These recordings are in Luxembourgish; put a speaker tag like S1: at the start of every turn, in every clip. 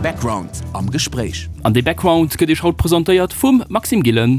S1: Background am Gespréich.
S2: An dee Background gëtt Iech haut presentéiert vum Maxime Gillen.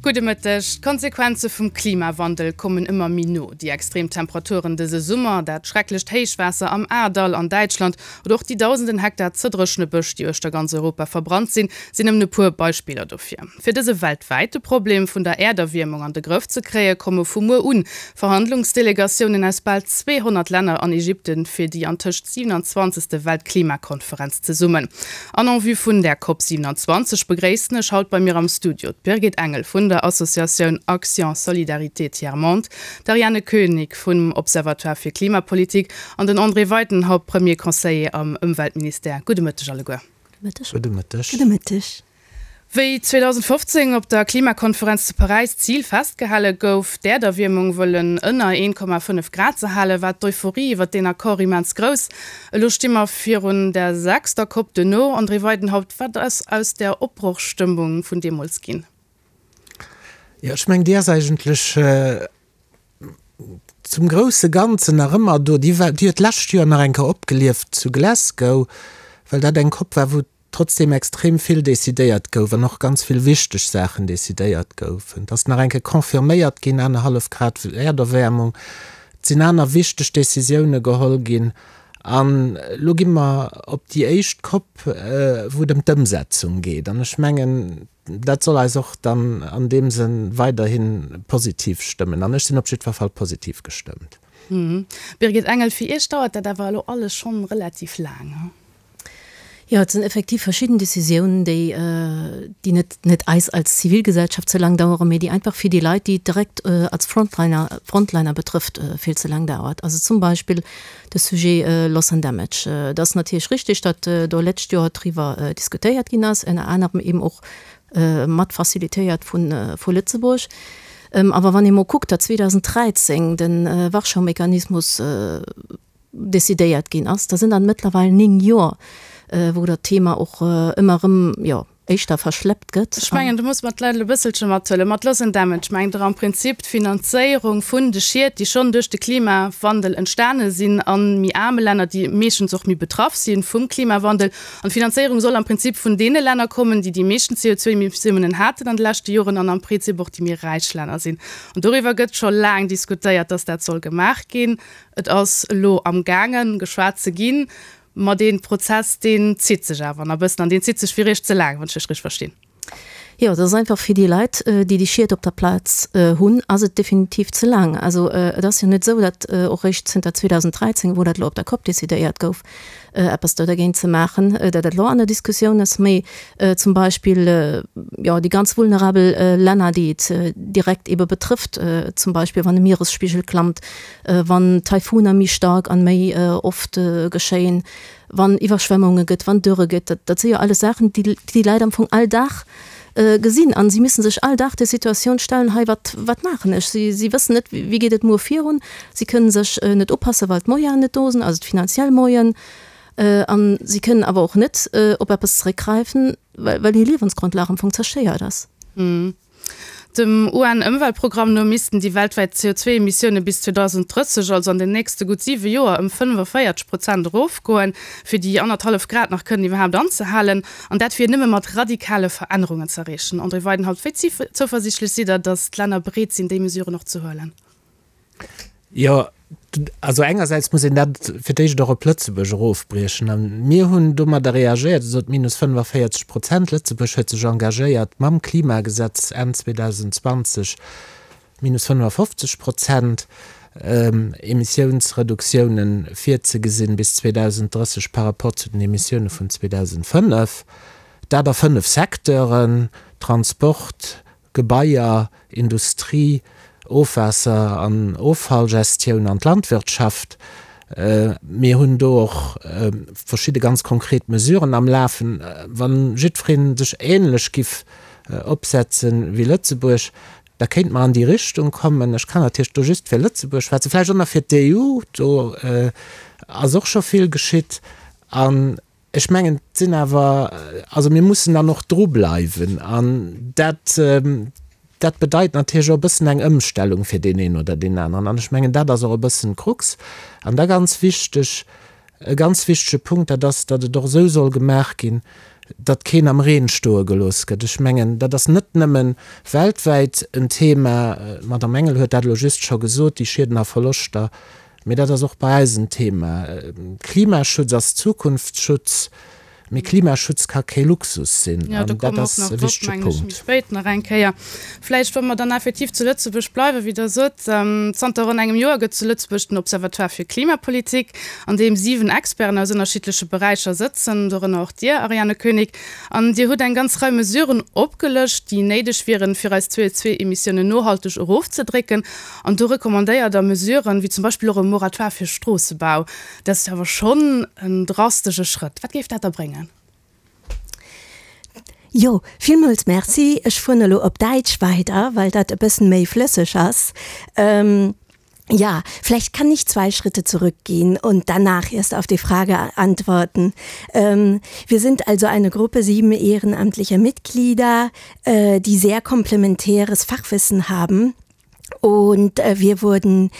S3: Gudde Mëtteg. D'Konsequenze vum Klimawandel kommen ëmmer méi no. Déi extrem Temperaturen dëse Summer, dat schrecklecht Héichwaasser am Ahrtal an Däitschland oder och déi dausenden Hektar ze dréchene Bësch, déi uechter ganz Europa verbrannt sinn, sinn nëmmen e puer Beispiller dofir. Fir dëse weltwäite Problem vun der Äerderwiermung an de Grëff ze kréie komme vu muer un Verhandlungsdelegatiounen aus bal 200 Länner an Ägypten fir déi antëscht 27. Weltklimakonferenz zesummen. An en vue vun där Cop 27 begréissen ech haut bei mir am Studio d'Birgit Engel vun der Associatioun Action Solidarité Tiers Monde, d'Ariane Koenig vum Observatoire fir Klimapolitik an den André Weidenhaupt, Premier Conseiller am Ëmweltministère. Gudde Mëtteg alleguer.
S4: Gudde Mëtteg.
S5: Gudde Mëtteg.
S3: Wéi 2015 op der Klimakonferenz zu Paräis d'Zil festgehale gouf, d'Äerderwiermung wëllen ënner 1,5 Grad ze halen, war d'Euphorie iwwer deen Accord immens grouss. Elo sti mer virun der sechster Cop duerno. André Weidenhaupt, wat ass aus där Opbrochstëmmung vun deemools ginn?
S4: Jo, ech mengen, déi ass eigentlech zum grousse Ganzen nach ëmmer do. Déi war, déi huet d'lescht Joer nach eng Kéier opgelieft zu Glasgow, well dat eng Cop war, wou trotzdem extrem vill decidéiert gouf an och ganz vill wichteg Saachen decidéiert goufen. Et ass nach eng Kéier confirméiert ginn, anerhallef Grad Äerderwäermung, et sinn aner wichteg Décisioune geholl ginn an elo gi mer op déi éischt Cop, wou et ëm d'Ëmsetzung geet. An ech mengen, dat soll eis och dann an deem Sënn weiderhi positiv stëmmen. An ech sinn op jiddwer Fall positiv gestëmmt.
S3: Birgit Engel, Fir Iech dauert dat awer elo alles schonn relativ laang, he?
S5: Jo, et sinn effektiv verschidden Décisiounen, déi, déi net, net eis als Zivilgesellschaft ze laang daueren, mee déi einfach fir déi Leit, déi et direkt als Frontliner, Frontliner betrëfft, vill ze laang dauert. Also zum Beispill de Sujet Loss and Damage. Et ass natierlech richtig, datt do lescht Joer driwwer diskutéiert ginn ass, ënner anerem eben och mat facilitéiert vu, vu Lëtzebuerg. Awer wann ee mol kuckt, datt 2013 de Warschau-Mechanismus, decidéiert ginn ass, da sinn dat mëttlerweil 9 Joer, wou dat Thema och ëmmer erëm, jo, éischter verschleppt gëtt.
S3: Ech mengen, do muss mer d'Leit elo e bësselche mathuelen. Mat Loss and Damage mengt Der am Prinzip d'Finanzéierung vun de Schied, déi schonn duerch de Klimawandel entstane sinn a méi aarme Länner, déi meeschtens och méi betraff si vum Klimawandel. An d'Finanzéierung soll am Prinzip vun deene Länner kommen, déi déi meeschten CO2-Emissiounen haten an de leschte Joren an am Prizip och déi méi räich Länner sinn. An doriwwer gëtt scho laang diskutéiert, dass dat soll gemaach ginn. Et ass elo amgaangen, geschwat ze ginn, ma dee Prozess, deen zitt sech awer nach e bëssen an deen zitt sech fir Iech ze laang, wann ech lech richteg verstinn.
S5: Jo, et ass einfach fir déi Leit, déi déi Schied op der Plaz hunn, ass et definitiv ze laang. Also et ass jo net esou, datt och réischt zënter 2013, wou dat elo op der Cop decidéiert gouf, eppes do dergéint ze maachen, datt dat elo an der Diskussioun ass, mee zum Beispill, jo, déi ganz vulnerabel Länner, déi et direkt eebe betrëfft, zum Beispill wann de Mieresspigel klammt, wann Taifuner méi staark an méi oft geschéien, wann Iwwerschwemmunge gëtt, wann Dürre gëtt, dat dat si jo alles Saachen, déi déi Leit am Fong all Dag gesinn an si müssen sech all Dag der Situatioun stellen, hei wat wat maachen ech? Si si wëssen net, wéi geet et muer virun, si kënnen sech net upassen, well d'Moyenen net do sinn, also d'finanziell Moyen, an si kënnen awer och net op eppes zeréckgräifen, well well hir Liewensgrondlag am Fong zerstéiert ass.
S3: Dem UN-Ëmweltprogramm no missten déi weltwäit CO2-Emissioune bis 2030, also an den nächste gutt siwe Joer, ëm 45 Prozent erofgoen, fir déi annerthallef Grad nach kënnen iwwerhaapt anzehalen. An dat wier nëmme mat radikale Verännerungen ze erreechen. André Weidenhaupt, wéi zouversiichtlech sidd Der, datt d'Länner bereet sinn, déi Mesuren och ze huelen?
S4: Jo, also engersäits muss een dat fir d'éischt och op Lëtzebuerg erofbriechen. A mir hunn domadder reagéiert, Dir sot minus 45 Prozent. Lëtzebuerg huet sech engagéiert mam Klimagesetz Enn 2020 minus 55 Prozent Emissiounsreduktiounen virzegesinn bis 2030 par rapport zu den Emissioune vun 2005. Dat a fënnef Secteuren, Transport, Gebaier, Industrie, Ofwaasser an Offallgestioun an d'Landwirtschaft. Mir hunn do och verschidde ganz konkret Mesuren am Lafen. Wa jiddweree sech änlech giff opsetze wéi Lëtzebuerg, da kéinte mer an déi Richtung kommen. Ech kann natierlech do just fir Lëtzebuerg schwätzen, vläicht och nach fir d'EU, do ass och scho vill geschitt. An Ech mengen, et sinn awer, also mir mussen dann och drubleiwen an dat, dat bedeit natierlech och e bëssen eng Ëmstellung fir deen een oder deen aneren. An ech mengen, dat ass och e bëssen d'Krux. An da ganz wichteg. E ganz wichtege Punkt, dat ass, datt et och esou soll gemaach ginn, datt keen am Reen stoe gelooss gëtt. Ech mengen, dat ass net nëmme weltwäit en Thema, d'Madame Engel huet dat elo just scho gesot, déi Schieden a Verloschter, mee dat ass och bei eis en Thema. Klimaschutz ass Zukunftsschutz. Mee Klimaschutz ka kee Luxus sinn,
S3: an dat ass e wichtege Punkt. Spéit nach eng Kéier. Vläicht, wa mer dann effektiv zu Lëtzebuerg bleiwen, wéi Der sot, Zanter ronn engem Joer gëtt zu Lëtzebuerg den Observatoire fir Klimapolitik, an deem 7 Experten aus ënnerschiddleche Beräicher sëtzen, dorënner och Dir, Ariane Koenig. An Dir hutt eng ganz Rei Mesuren opgelëscht, déi néideg wieren, fir eis CO2-Emissiounen nohalteg erofzedrécken. An do recommandéiert Der Mesuren, wéi zum Beispill och e Moratoire fir Stroossebau. Dat ass jo awer schonn en drastesche Schrëtt. Wat géif dat da bréngen?
S6: Jo, villmools Merci. Ech fueren elo op Däitsch weider, well dat e bëssen méi flësseg ass. Ja, vielleicht kann ich zwei Schritte zurückgehen und danach erst auf die Frage antworten. Wir sind also eine Gruppe sieben ehrenamtlicher Mitglieder, die sehr komplementäres Fachwissen haben. Und äh, wir wurden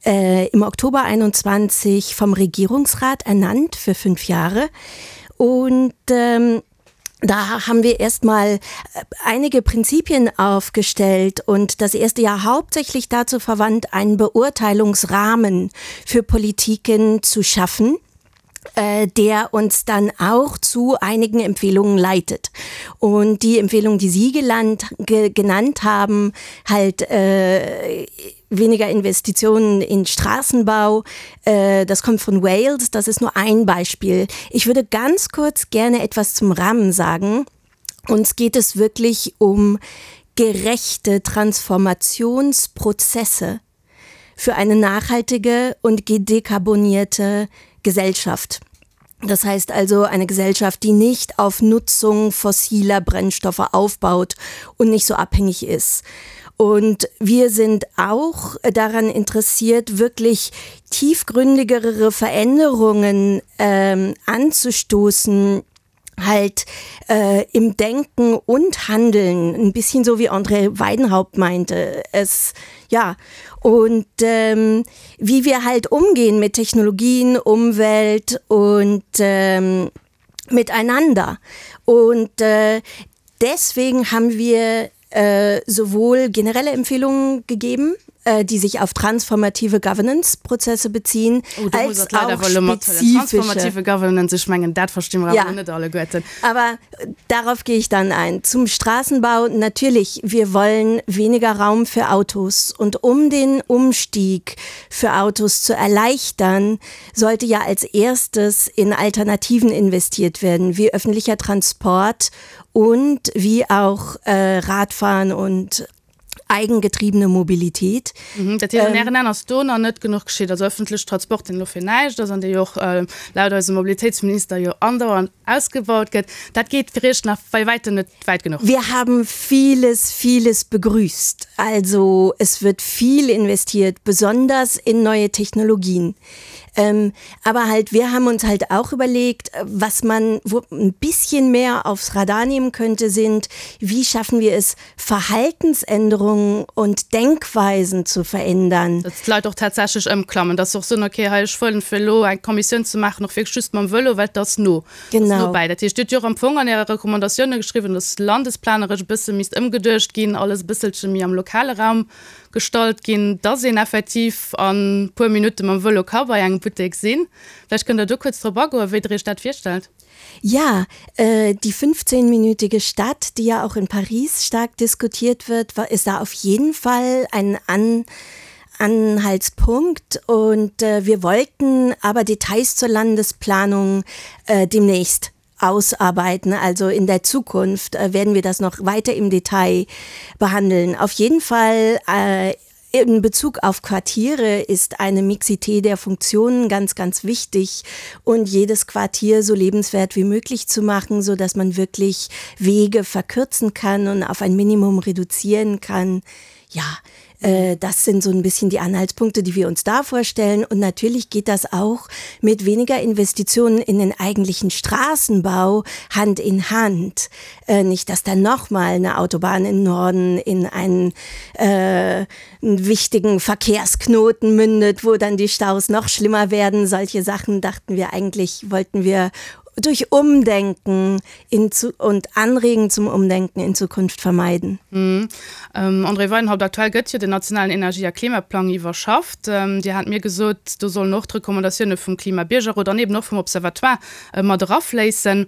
S6: äh, im Oktober 21 vom Regierungsrat ernannt für fünf Jahre. Und ähm, da haben wir erstmal äh, einige Prinzipien aufgestellt und das erste Jahr hauptsächlich dazu verwandt, einen Beurteilungsrahmen für Politiken zu schaffen äh, der uns dann auch zu einigen Empfehlungen leitet. Und die Empfehlung, die Sie gelannt, ge, genannt haben, halt äh, weniger Investitionen in Straßenbau, äh, das kommt von Wales, das ist nur ein Beispiel. Ich würde ganz kurz gerne etwas zum Rahmen sagen. Uns geht es wirklich um gerechte Transformationsprozesse für eine nachhaltige und gedekarbonierte Gesellschaft. Das heißt also eine Gesellschaft, die nicht auf Nutzung fossiler Brennstoffe aufbaut und nicht so abhängig ist. Und wir sind auch daran interessiert, wirklich tiefgründigere Veränderungen ähm, anzustoßen, halt äh, im Denken und Handeln ein bisschen so wie André Weidenhaupt meinte es ja und ähm, wie wir halt umgehen mit Technologien, Umwelt und ähm, miteinander und äh, deswegen haben wir äh, sowohl generelle Empfehlungen gegeben, äh, die sich auf transformative Governance-Prozesse beziehen
S3: oh, als auch transformative Governance ich mengen dat verstinn mer ja. net alleguerten.
S6: Aber äh, darauf gehe ich dann ein. Zum Straßenbau natürlich, wir wollen weniger Raum für Autos und um den Umstieg für Autos zu erleichtern, sollte ja als erstes in Alternativen investiert werden, wie öffentlicher Transport und wie auch äh, Radfahren und eigengetriebene Mobilität.
S3: Mhm, dat heescht, an Ären Aen ass do nach net genuch geschitt, also öffentlech Transport, deen elo fir näischt ass an dee jo och laut eisem Mobilitéitsminister jo andauernd ausgebaut gëtt, dat geet fir Iech nach bei wäitem net wäit genuch.
S6: Wir haben vieles, vieles begrüßt. Also es wird viel investiert, besonders in neue Technologien. Ähm, aber halt wir haben uns halt auch überlegt, was man wo ein bisschen mehr aufs Radar nehmen könnte, sind, wie schaffen wir es, Verhaltensänderungen und Denkweisen zu verändern.
S3: Dass d'Leit och tatsächlech ëmklammen, dass se och soen, okay, hei ech wëllen fir elo eng Kommissioun ze maachen och wierklech just mam Vëlo, well et ass no, et ass no bäi. Dat heescht, Dir hutt jo och am Fong an Äre Recommandatioune geschriwwen, dass landesplaneresch e bësse misst ëmgeduecht ginn, alles e bësselche méi am lokale Raum gestallt ginn, dass een effektiv a puer Minutte mam Vëlo ka bei engem Buttek sinn. Vläicht kënnt Der do kuerz drop agoen, wéi Der Iech dat virstellt.
S6: Ja, äh, die 15-minütige Stadt, die ja auch in Paris stark diskutiert wird, war, ist da auf jeden Fall ein An Anhaltspunkt und äh, wir wollten aber Details zur Landesplanung äh, demnächst ausarbeiten. Also in der Zukunft äh, werden wir das noch weiter im Detail behandeln. Auf jeden Fall äh, in Bezug auf Quartiere ist eine Mixität der Funktionen ganz, ganz wichtig und jedes Quartier so lebenswert wie möglich zu machen, so dass man wirklich Wege verkürzen kann und auf ein Minimum reduzieren kann. Ja, äh, das sind so ein bisschen die Anhaltspunkte, die wir uns da vorstellen. Und natürlich geht das auch mit weniger Investitionen in den eigentlichen Straßenbau Hand in Hand. Äh, nicht, dass da noch mal eine Autobahn in Norden in einen, äh, einen wichtigen Verkehrsknoten mündet, wo dann die Staus noch schlimmer werden. Solche Sachen dachten wir eigentlich, wollten wir durch Umdenken in zu, und Anregen zum Umdenken in Zukunft vermeiden.
S3: Mhm. Ähm, André Weidenhaupt, aktuell gëtt jo den nationalen Energie a Klimaplang iwwerschafft. Ähm, Dir hat mir gesot, do sollen och d'Recommandatioune vum Klimabiergerrot an eben och vum Observatoire äh, mat erafléissen.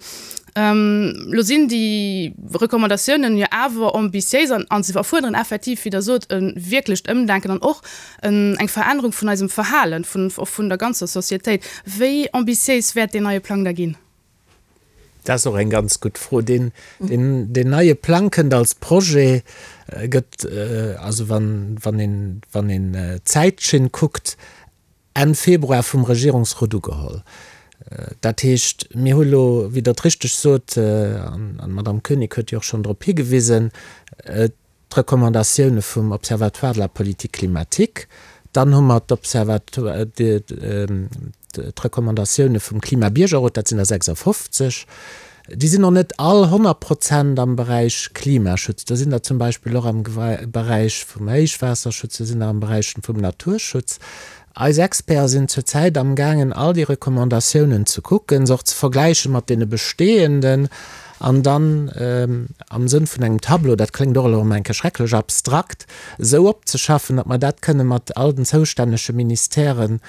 S3: Ähm, lo sinn déi Recommandatiounen jo awer ambitiéis an, an se erfuerderen effektiv, wéi Der sot, e wierklecht Ëmdenken an och en, eng Verännerung vun eisem Verhalen, vun, och vun der ganzer Societéit. Wéi ambitiéis wäert deen neie Plang da ginn?
S4: Dat ass och eng ganz gutt Fro. Deen, deen, deen neie Plang kënnt als Projet, gëtt, also wann, wann een, wann een d'Zäitschinn kuckt, Enn Februar vum Regierungsrot ugeholl. Dat heescht, mir hu elo, wéi Der et richteg sot, an d'Madame Koenig huet jo och schonn drop higewisen, d'Recommandatioune vum Observatoire de la politique climatique, dann hu mer d'Recommandatioune vum Klimabiergerrot, dat sinn der 56. Déi sinn och net all 100 Prozent am Beräich Klimaschutz. Do sinn der zum Beispill och am Beräich vum Héichwaasserschutz, do sinn der am Beräich vum Naturschutz. Eis Experten sinn zurzäit amgaangen, all déi Recommandatiounen ze kucken, se och ze vergläiche mat deene bestehenden an dann am Sënn vun engem Tableau, dat kléngt och elo erëm eng Kéier schrecklech abstrakt, esou opzeschaffen, datt mer dat kënne mat all den zoustännege Ministèren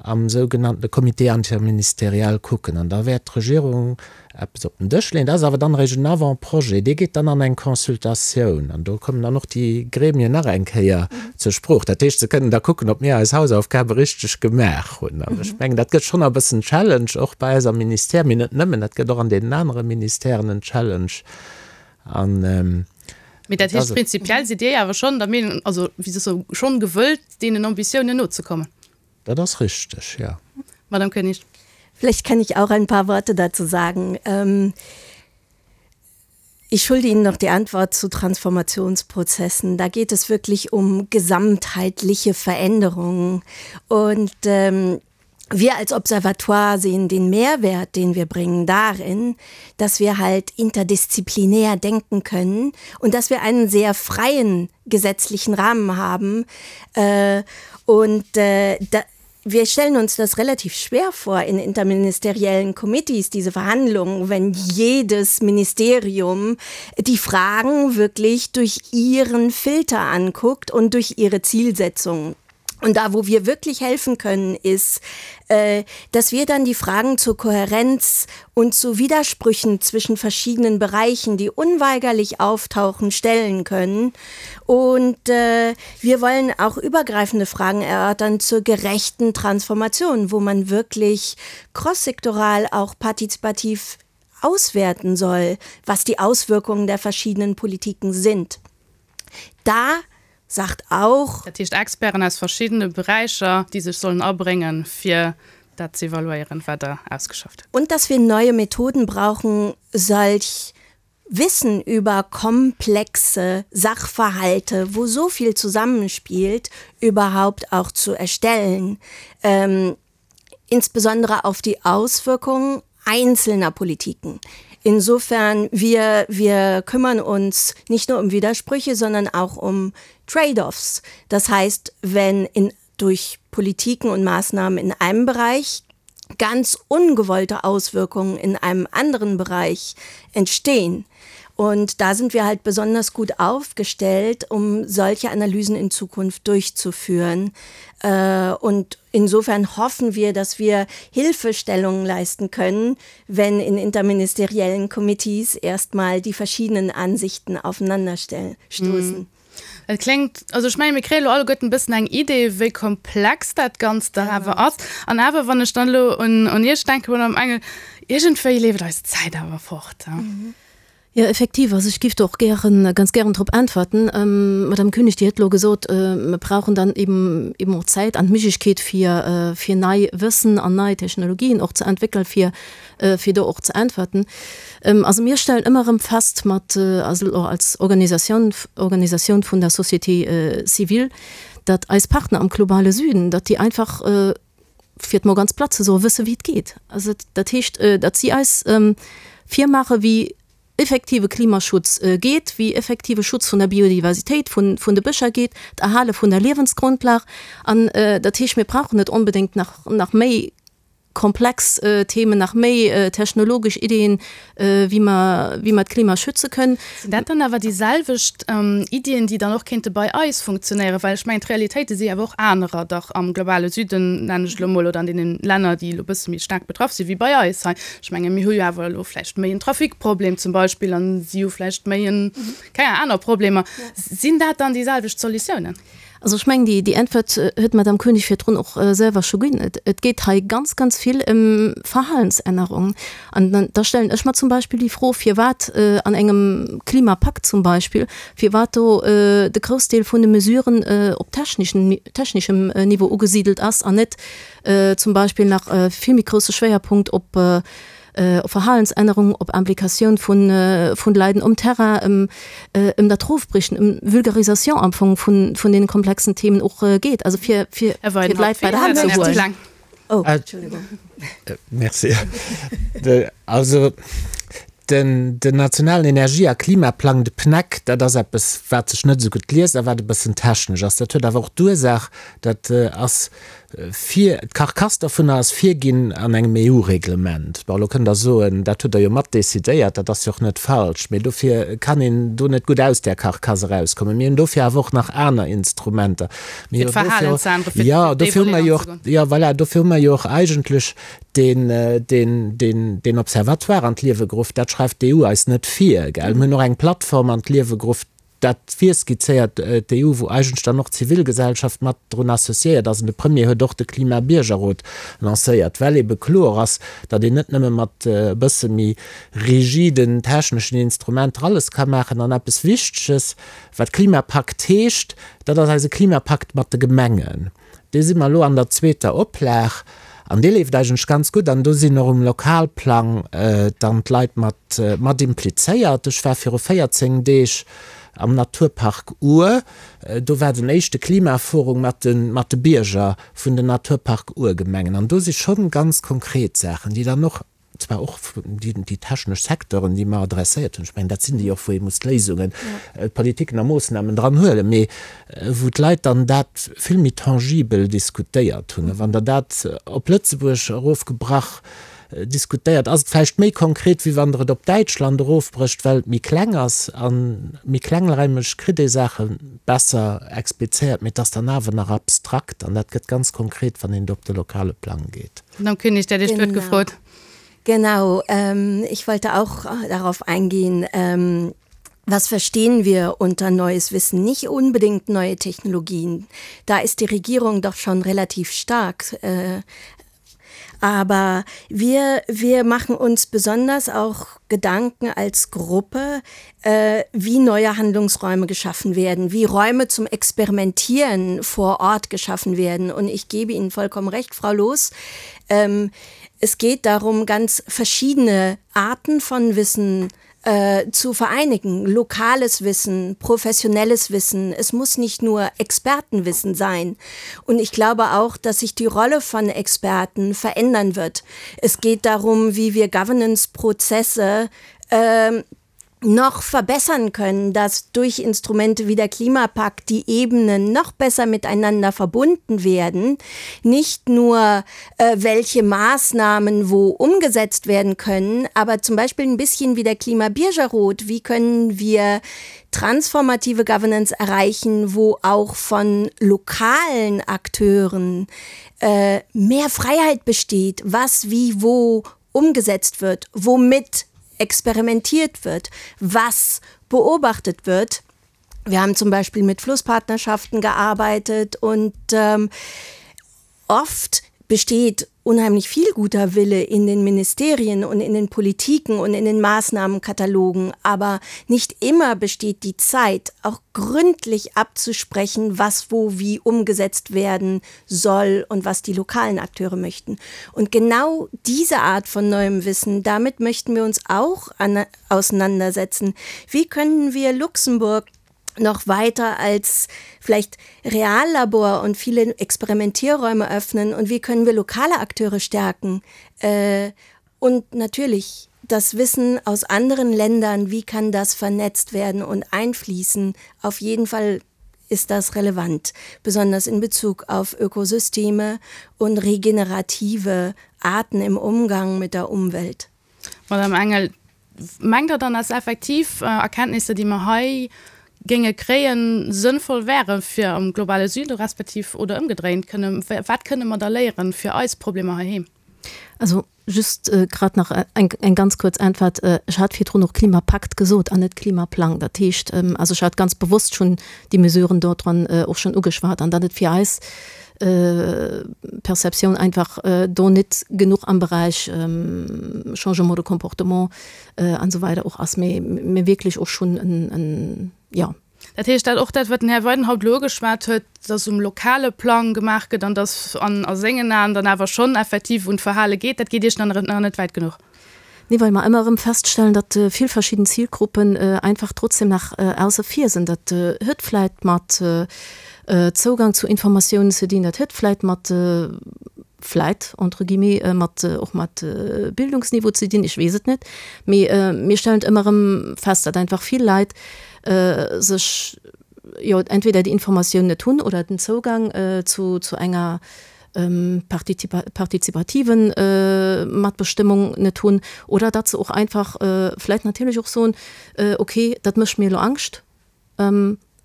S4: am sougenannte Comité interministériel kucken an da wäert d'Regierung eppes op den Dësch leeën. Dat ass awer dann eréischt en Avant-projet, dee geet dann an eng Consultatioun an do kommen dann och déi Gremien nach eng Kéier zur Sprooch. Dat heescht, se kënnen da kucken, ob mir eis Hausaufgabe richteg gemaach hunn. An ech mengen, dat gëtt schonn e bëssen Challenge, och bei eis am Ministère, mee net nëmmen, dat gëtt och an deenen anere Ministèren en Challenge.
S3: An Mee dat heescht, prinzipiell sidd Dir awer schonn der Meenung, also wéi soll ech soen, schonn gewëllt, deenen Ambitiounen nozekommen?
S4: Dat ass richteg, jo.
S3: Madame Koenig.
S6: Vielleicht kann ich auch ein paar Worte dazu sagen. Ähm, ich schulde Ihnen noch die Antwort zu Transformationsprozessen. Da geht es wirklich um gesamtheitliche Veränderungen. Und ähm, wir als Observatoire sehen den Mehrwert, den wir bringen, darin, dass wir halt interdisziplinär denken können und dass wir einen sehr freien gesetzlichen Rahmen haben. Äh, und äh, da, wir stellen uns das relativ schwer vor in interministeriellen Committees, diese Verhandlungen, wenn jedes Ministerium die Fragen wirklich durch ihren Filter anguckt und durch ihre Zielsetzungen. Und da, wo wir wirklich helfen können, ist, äh, dass wir dann die Fragen zur Kohärenz und zu Widersprüchen zwischen verschiedenen Bereichen, die unweigerlich auftauchen, stellen können. Und äh, wir wollen auch übergreifende Fragen erörtern zur gerechten Transformation, wo man wirklich crosssektoral auch partizipativ auswerten soll, was die Auswirkungen der verschiedenen Politiken sind. Da sagt auch.
S3: Dat heescht Experten aus verschiddene Beräicher, déi sech sollen abréngen, fir dat ze evaluéieren, wat Der ausgeschafft
S6: hutt. Und dass wir neue Methoden brauchen, solch Wissen über komplexe Sachverhalte, wo so viel zusammenspielt, überhaupt auch zu erstellen. Ähm, insbesondere auf die Auswirkungen einzelner Politiken. Insofern wir, wir kümmern uns nicht nur um Widersprüche, sondern auch um Trade-offs. Das heißt, wenn in, durch Politiken und Maßnahmen in einem Bereich ganz ungewollte Auswirkungen in einem anderen Bereich entstehen. Und da sind wir halt besonders gut aufgestellt, um solche Analysen in Zukunft durchzuführen. Äh, und insofern hoffen wir, dass wir Hilfestellungen leisten können, wenn in interministeriellen Komitees erstmal die verschiedenen Ansichten aufeinanderstoßen.
S3: Mhm. Et kléngt, also ech mengen, mir kréie lo alleguerten e bëssen eng Idee, wéi komplex dat Ganzt dach awer ass. An awer, wann ech dann elo un, un Iech denken, Madame Engel, iergendwéi leeft eis d'Zäit awer fort.
S5: Jo, effektiv. Also ech géif do och gären, ganz gären drop äntwerten. Madame Koenig, Dir hutt elo gesot, mer brauchen dann eben, eben och Zäit an d'Méiglechkeet fir, fir nei Wëssen an nei Technologien och ze entwéckelen, fir, fir do och ze äntwerten. Also mir stellen ëmmer erëm fest mat, also och als Organisatioun, Organisatioun vun der Société civile, datt eis Partner am globale Süden, datt déi einfach, fir et mol ganz platt ze soen, wësse wéi et geet. Also dat heescht, datt si eis virmaache wéi effektive Klimaschutz geet, wéi effektive Schutz vun der Biodiversitéit, vun de Bëscher geet, d'Erhale vun der Liewensgrundlag. An dat heescht, mir brauchen net onbedéngt nach nach méi komplex Themen, nach méi technologesch Iddien, wéi mer, wéi mer d'Klima schütze kënnen.
S3: Sinn dat dann awer déi selwecht Iddien, déi dann och kéinte bei eis funktionéieren? Well ech mengen, d'Realitéite si awer och anerer dach am globale Süden, nennen ech et elo emol, oder an deene Länner, déi elo e bësse méi staark betraff si wéi bei eis hei. Ech menge mir hu jo awer elo vläicht méi en Trafikproblem zum Beispill an si hu vläicht méi en, keng Ahnung, aner Problemer. Sinn dat dann déi selwecht Solutiounen?
S5: Also ech mengen, déi, déi Äntwert huet d'Madame Koenig virdrun och selwer scho ginn. Et, et geet hei ganz, ganz vill ëm Verhalensännerung. An dann, da stellen ech mer zum Beispill déi Fro, firwat an engem Klimapakt zum Beispill, firwat do de Groussdeel vun de Mesuren op technischen, technischem Niveau ugesidelt ass an net zum Beispill nach e vill méi grousse Schwéierpunkt op, op Verhalensännerung, op Implikatioun vun vun de Leiden um Terrain, ëm ëm dat Rofbriechen, ëm Vulgarisation am Fong vun vun deene komplexen Themen och geet, also fir fir fir d'Leit bei der Hand ze huelen.
S4: Oh, Entschuldigung. Merci. Also den den nationalen Energie a Klimaplang, de PNEC, dat ass eppes, wat sech net esou gutt liest a wat e bëssen technesch ass. Dat huet awer och d'Ursaach, dat ass Vir, d'Carcasse dovunner ass virginn an engem EU-Reglement. Bon, elo kënnt Der soen, dat hutt Der jo mat decidéiert, dat ass jo och net falsch, mee dofir kann een do net gutt aus där Carcasse erauskommen. Mir hunn dofir awer och nach aner Instrumenter. Mir
S3: Fir d'Verhalen ze änneren, fir
S4: jo, dofir hu mer jo och, jo, voilà, dofir hu mer jo och eigentlech deen, deen, deen, deen Observatoire an d'Liewe geruff. Dat schreift d'EU eis net vir, gell. Mir hunn och eng Plattform an d'Liewe geruff, Dat virskizzéiert d'EU, wou eigentlech dann och d'Zivilgesellschaft mat drun associéiert ass. An de Premier huet och de Klimabiergerrot lancéiert, well ebe kloer ass, datt een net nëmme mat e bësse méi rigiden techneschen Instrumenter alles ka maachen. An eppes Wichteges, wat Klimapakt heescht, dat ass eise Klimapakt mat de Gemengen. Dee si mer elo an der zweeter Oplag an dee leeft eigentlech ganz gutt an do sinn och um Lokalplang dann d'Leit mat mat implizéiert. Ech war viru 14 Deeg am Naturpark Our, do war den éischte Klimaforum mat de mat de Bierger vun den Naturpark Our-Gemengen an do si schonn ganz konkret Saachen, déi dann och zwar och déi technesch Secteuren, déi mer adresséiert hunn, ech mengen, dat sinn déi och, wou ee muss d'Léisungen, d'Politiken a Moossnamen dran huelen, mee wou d'Leit dann dat vill méi tangibel diskutéiert hunn. A wann Der dat op Lëtzebuerg erofgebrach diskutéiert, ass et vläicht méi konkret, wéi wann Der et op Däitschland erofbrécht, well et méi kleng ass. A méi klengräimeg kritt ee Saache besser explizéiert, mee et ass dann awer nach abstrakt an dat gëtt ganz konkret, wann een do op de lokale Plang geet.
S3: Madame Koenig, der Dir huet gefrot.
S6: Genau, ähm, ich wollte auch äh, darauf eingehen, ähm, was verstehen wir unter neues Wissen? Nicht unbedingt neue Technologien. Da ist die Regierung doch schon relativ stark. Äh, aber wir, wir machen uns besonders auch Gedanken als Gruppe, äh, wie neue Handlungsräume geschaffen werden, wie Räume zum Experimentieren vor Ort geschaffen werden. Und ich gebe Ihnen vollkommen recht, Frau Loos. Ähm, es geht darum, ganz verschiedene Arten von Wissen äh, zu vereinigen. Lokales Wissen, professionelles Wissen. Es muss nicht nur Expertenwissen sein. Und ich glaube auch, dass sich die Rolle von Experten verändern wird. Es geht darum, wie wir Governance-Prozesse äh, noch verbessern können, dass durch Instrumente wie der Klimapakt die Ebenen noch besser miteinander verbunden werden, nicht nur äh, welche Maßnahmen wo umgesetzt werden können, aber zum Beispiel ein bisschen wie der Klimabiergerot, wie können wir transformative Governance erreichen, wo auch von lokalen Akteuren äh, mehr Freiheit besteht, was wie wo umgesetzt wird, womit experimentiert wird, was beobachtet wird. Wir haben zum Beispiel mit Flusspartnerschaften gearbeitet und ähm, oft besteht. unheimlich viel guter Wille in den Ministerien und in den Politiken und in den Maßnahmenkatalogen, aber nicht immer besteht die Zeit, auch gründlich abzusprechen, was wo wie umgesetzt werden soll und was die lokalen Akteure möchten. Und genau diese Art von neuem Wissen, damit möchten wir uns auch an, auseinandersetzen. Wie können wir Luxemburg noch weiter als vielleicht Reallabor und viele Experimentierräume öffnen und wie können wir lokale Akteure stärken? Äh, und natürlich das Wissen aus anderen Ländern, wie kann das vernetzt werden und einfließen? Auf jeden Fall ist das relevant, besonders in Bezug auf Ökosysteme und regenerative Arten im Umgang mit der Umwelt.
S3: Madame Engel, Mengt Der dann, dass effektiv Erkenntnisser, déi mer hei géinge kréien, sënnvoll wäre fir am globale Süden, respektiv oder ëmgedréint? Kënne, wat kënne mer da léieren fir eis Problemer heiheem?
S5: Also just grad nach eng, eng ganz kuerz Äntwert. Ech hat virdrun och Klimapakt gesot an net Klimaplang. Dat heescht, also ech hat ganz bewosst schonn déi Mesuren do dran och schonn ugeschwat an datt et fir eis Perceptioun einfach do net genuch am Beräich Changement de comportement an esou weider och ass, mee mir wierklech och schonn en, jo.
S3: Dat heescht, dat och dat, wat den Här Weidenhaupt elo ugeschwat huet, dass um lokale Plang gemaach gëtt an dass an a sengen Aen dann awer schonn effektiv un d'Verhale geet, dat geet Iech nach net wäit genuch?
S5: Nee, well mer ëmmer erëm feststellen, datt vill verschidden Zilgruppen einfach trotzdem nach ausse vir sinn. Dat huet vläit mat Zougang zu Informatiounen ze dinn, dat huet vläit mat, vläit entre guillemets, mat och mat Bildungsniveau ze dinn, ech weess et net. Mee mir stellen et ëmmer erëm fest, datt einfach vill Leit sech, jo, entweder déi Informatioun net hunn oder den Zougang zu enger partizipativen Matbestëmmung net hunn oder datt se och einfach vläit natierlech och soen, okay, dat mécht mir elo Angscht,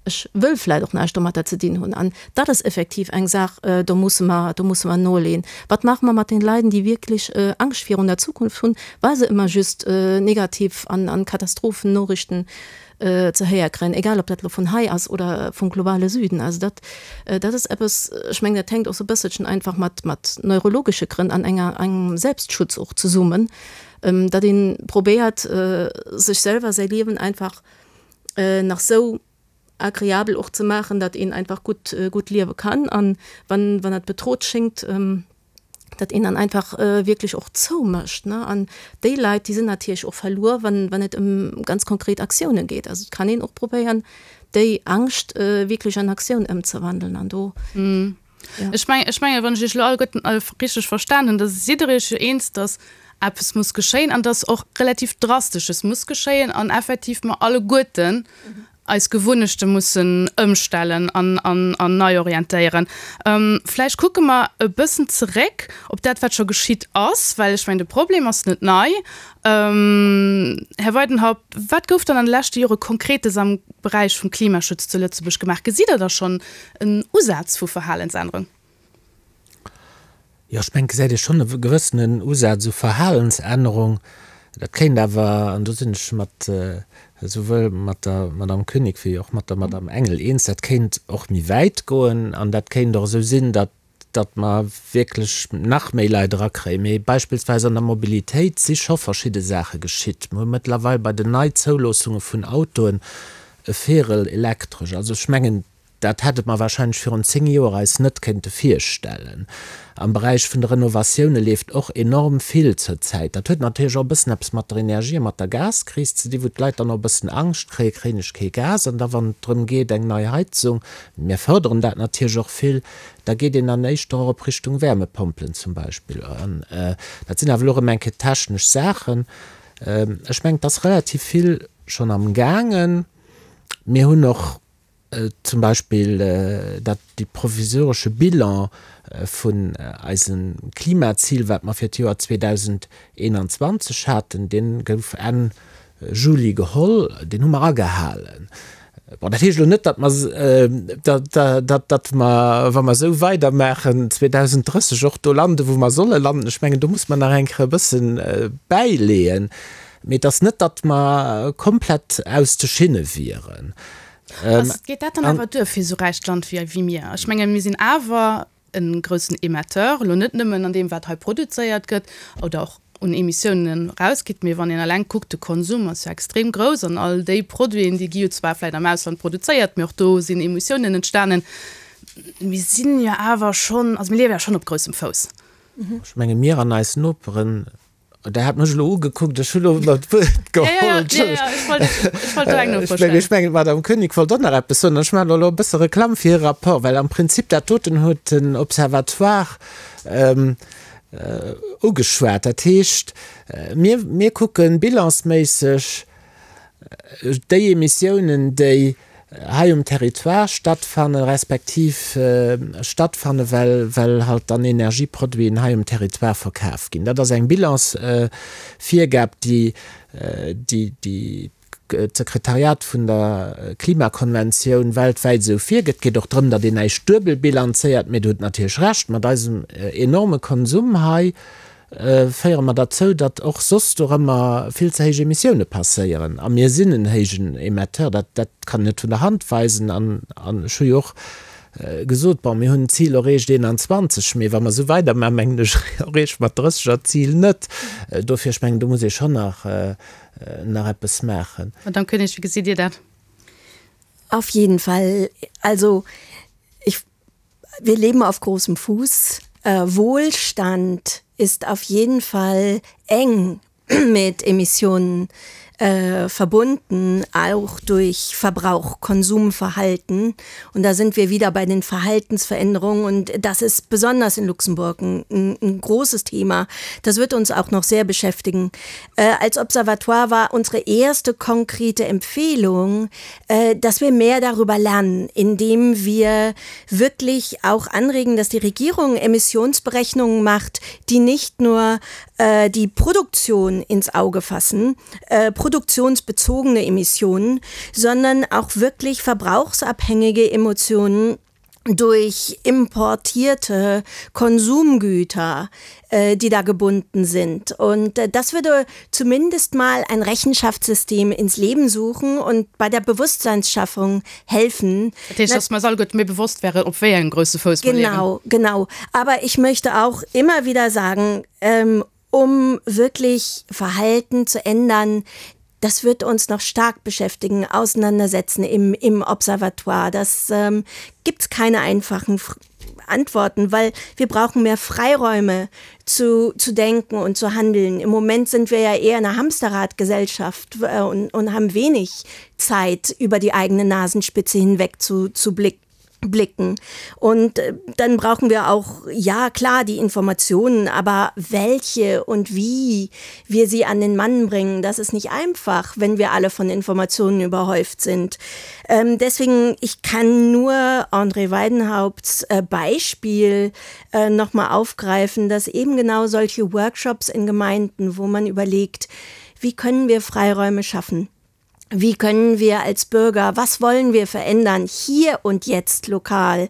S5: ech wëll vläit och näischt domatter ze dinn hunn. An dat ass effektiv eng Saach, do musse mer, do musse mer noleeën. Wat maache mer mat den Leiden, déi wierklech Angscht virun der Zukunft hunn, well se ëmmer just negativ an Katastrophennoriichten ze héier kréien, egal ob dat elo vun hei ass oder vum globale Süden. Also dat, dat ass eppes, ech mengen, dat hänkt och sou e bësselchen einfach mat, mat neurologesche Grënn an enger, engem Selbstschutz och zesummen, datt ee probéiert, sech selwer säi Liewen einfach nach sou agreabel och ze maachen, datt een einfach gutt, gutt liewe kann. An wann, wann dat bedrot schéngt, datt een dann einfach wierklech och zoumécht, ne. An déi Leit, déi sinn natierlech och verluer, wann, wann et ëm ganz konkret Aktiounen geet. Also et kann een och probéieren, déi Angscht wierklech an Aktioun ëmzewandeln an do,
S3: jo. Ech mengen, ech mengen, wann ech Iech elo alleguerten richteg verstan hunn, da sidd Der Iech jo eens, datt eppes muss geschéien an datt och relativ Drastesches muss geschéien an effektiv mer alleguerten eis Gewunnechte mussen ëmstellen an an nei orientéieren. Vläicht kucke mer e bëssen zeréck op dat, wat scho geschitt ass, well ech mengen, de Problem ass net nei. Här Weidenhaupt, wat gouf dann an de leschte Jore Konkretes am Beräich vum Klimaschutz zu Lëtzebuerg gemaach? Gesitt Der da schonn en Usaz vu Verhalensännerung?
S4: Jo, ech mengen, et gesäit ee schonn e gewëssenen Usaz u Verhalensännerung. Dat kéint awer, an do sinn ech mat esouwuel mat der Madame Koenig wéi och mat der Madame Engel eens, dat kéint och méi wäit goen an dat kéint och esou sinn, datt datt mer wierklech nach méi Leit erakréien. Mee beispillsweis an der Mobilitéit si scho verschidde Saache geschitt. Mer hu mëttlerweil bei den Neizoulaassunge vun Autoen e Véierel elektresch. Also ech mengen, Dat hätte mer wahrscheinlech virun 10 Joer eis net kéinte virstellen. Am Beräich vun de Renovatioune leeft och enorm vill zur Zäit. Dat huet natierlech och e bëssen eppes mat der Energie a mat der Gaskris ze dinn, wou d'Leit dann och e bëssen Angscht kréien, kréien ech kee Gas? An da wann et drëm geet, eng nei Heizung, mir fërderen dat natierlech och vill, da geet een dann éischter och op Richtung Wärmepompelen zum Beispill. An dat sinn awer elo erëm eng Kéier technesch Saachen. Ech mengen, et ass relativ vill schonn amgaangen. Mir hunn och Zum Beispill dat dee provisoresche Bilan vun eisem Klimazil, wat mer fir d'Joer 2021 haten, dee gouf Enn Juli geholl, deen hu mer agehalen. Bon, dat heescht elo net, datt mer, datt mer, wa mer esou weidermaachen, 2030 och do landen, wou mer solle landen. Ech mengen, do muss mer nach eng Kéier e bësse bäileeën. Mee et ass net, datt mer komplett aus de Schinne wieren.
S3: Ass, geet dat dann awer duer fir esou räicht Land wéi, wéi mir? Ech menge mir sinn awer. e groussen Emetteur, elo net nëmmen an deem wat hei produzéiert gëtt oder och un Emissiounen erausgitt, mee wann een eleng kuckt, de Konsum ass jo extrem grouss an all déi Produiten, déi gi jo zwar vläicht am Ausland produzéiert, mee och do sinn Emissiounen entstanen. Mir sinn jo awer schonn, also mir liewe jo schonn op groussem Fouss.
S4: Ech menge mir an eis Noperen, Der hat mech elo ugekuckt, ech hu lo ëmmer d'Wuert geholl. Ech mengen, d'Madame Koenig wollt och nach eppes soen. Ech maachen elo e bësse Reklamm fir hire Rapport, well am Prinzip dat doten huet den Observatoire ugeschwat. Dat heescht, mir, mir kucke bilansméisseg déi Emissiounen, déi hei um Territoire stattfannen, respektiv stattfanne well, well halt dann Energieproduiten hei um Territoire verkaf ginn. Dat ass eng Bilansvirgab, déi, déi, déi d'Sekretariat vun der Klimakonventioun weltwäit esou virgëtt. Et geet och drëm, datt een näischt duebel bilanzéiert. Mee Der hutt natierlech Recht, mat eisem enorme Konsum hei féiere mer derzou, datt och soss dorëmmer vill ze héich Emissioune passéieren. A mir sinn en héijen Emetteur, dat, dat kann een net vun der Hand weisen. An, an ech hu jo och gesot, bon, mir hunn d'Zil erreecht 21, mee wa mer esou weidermachen, mengen ech, erreeche mer d'30 er Zil net. Dofir, ech mengen, do muss ee schonn nach, nach eppes maachen.
S3: Madame Koenig, wéi gesitt Dir dat?
S6: Auf jeden Fall. Also ich, wir leben auf großem Fuß. Äh, Wohlstand ist auf jeden Fall eng mit Emissionen äh, verbunden, auch durch Verbrauch, Konsumverhalten. Und da sind wir wieder bei den Verhaltensveränderungen und das ist besonders in Luxemburg ein, ein, ein großes Thema. Das wird uns auch noch sehr beschäftigen. Äh, als Observatoire war unsere erste konkrete Empfehlung, äh, dass wir mehr darüber lernen, indem wir wirklich auch anregen, dass die Regierung Emissionsberechnungen macht, die nicht nur äh, die Produktion ins Auge fassen, äh, produktionsbezogene Emissionen, sondern auch wirklich verbrauchsabhängige Emotionen durch importierte Konsumgüter, äh, die da gebunden sind. Und äh, das würde zumindest mal ein Rechenschaftssystem ins Leben suchen und bei der Bewusstseinsschaffung helfen.
S3: Dat heescht, dass mer eis alleguerte méi bewosst wären, op wéi engem grousse Fouss mer
S6: liewen. Genau, genau. Aber ich möchte auch immer wieder sagen, ähm, um wirklich Verhalten zu ändern, das wird uns noch stark beschäftigen, auseinandersetzen im, im Observatoire. Das ähm, gibt es keine einfachen Antworten, weil wir brauchen mehr Freiräume zu, zu denken und zu handeln. Im Moment sind wir ja eher eine Hamsterradgesellschaft äh, und, und haben wenig Zeit, über die eigene Nasenspitze hinweg zu, zu blicken blicken. Und äh, dann brauchen wir auch, ja klar, die Informationen, aber welche und wie wir sie an den Mann bringen, das ist nicht einfach, wenn wir alle von Informationen überhäuft sind. Ähm, deswegen, ich kann nur André Weidenhaupts äh, Beispiel äh, noch mal aufgreifen, dass eben genau solche Workshops in Gemeinden, wo man überlegt, wie können wir Freiräume schaffen? Wie können wir als Bürger, was wollen wir verändern, hier und jetzt lokal?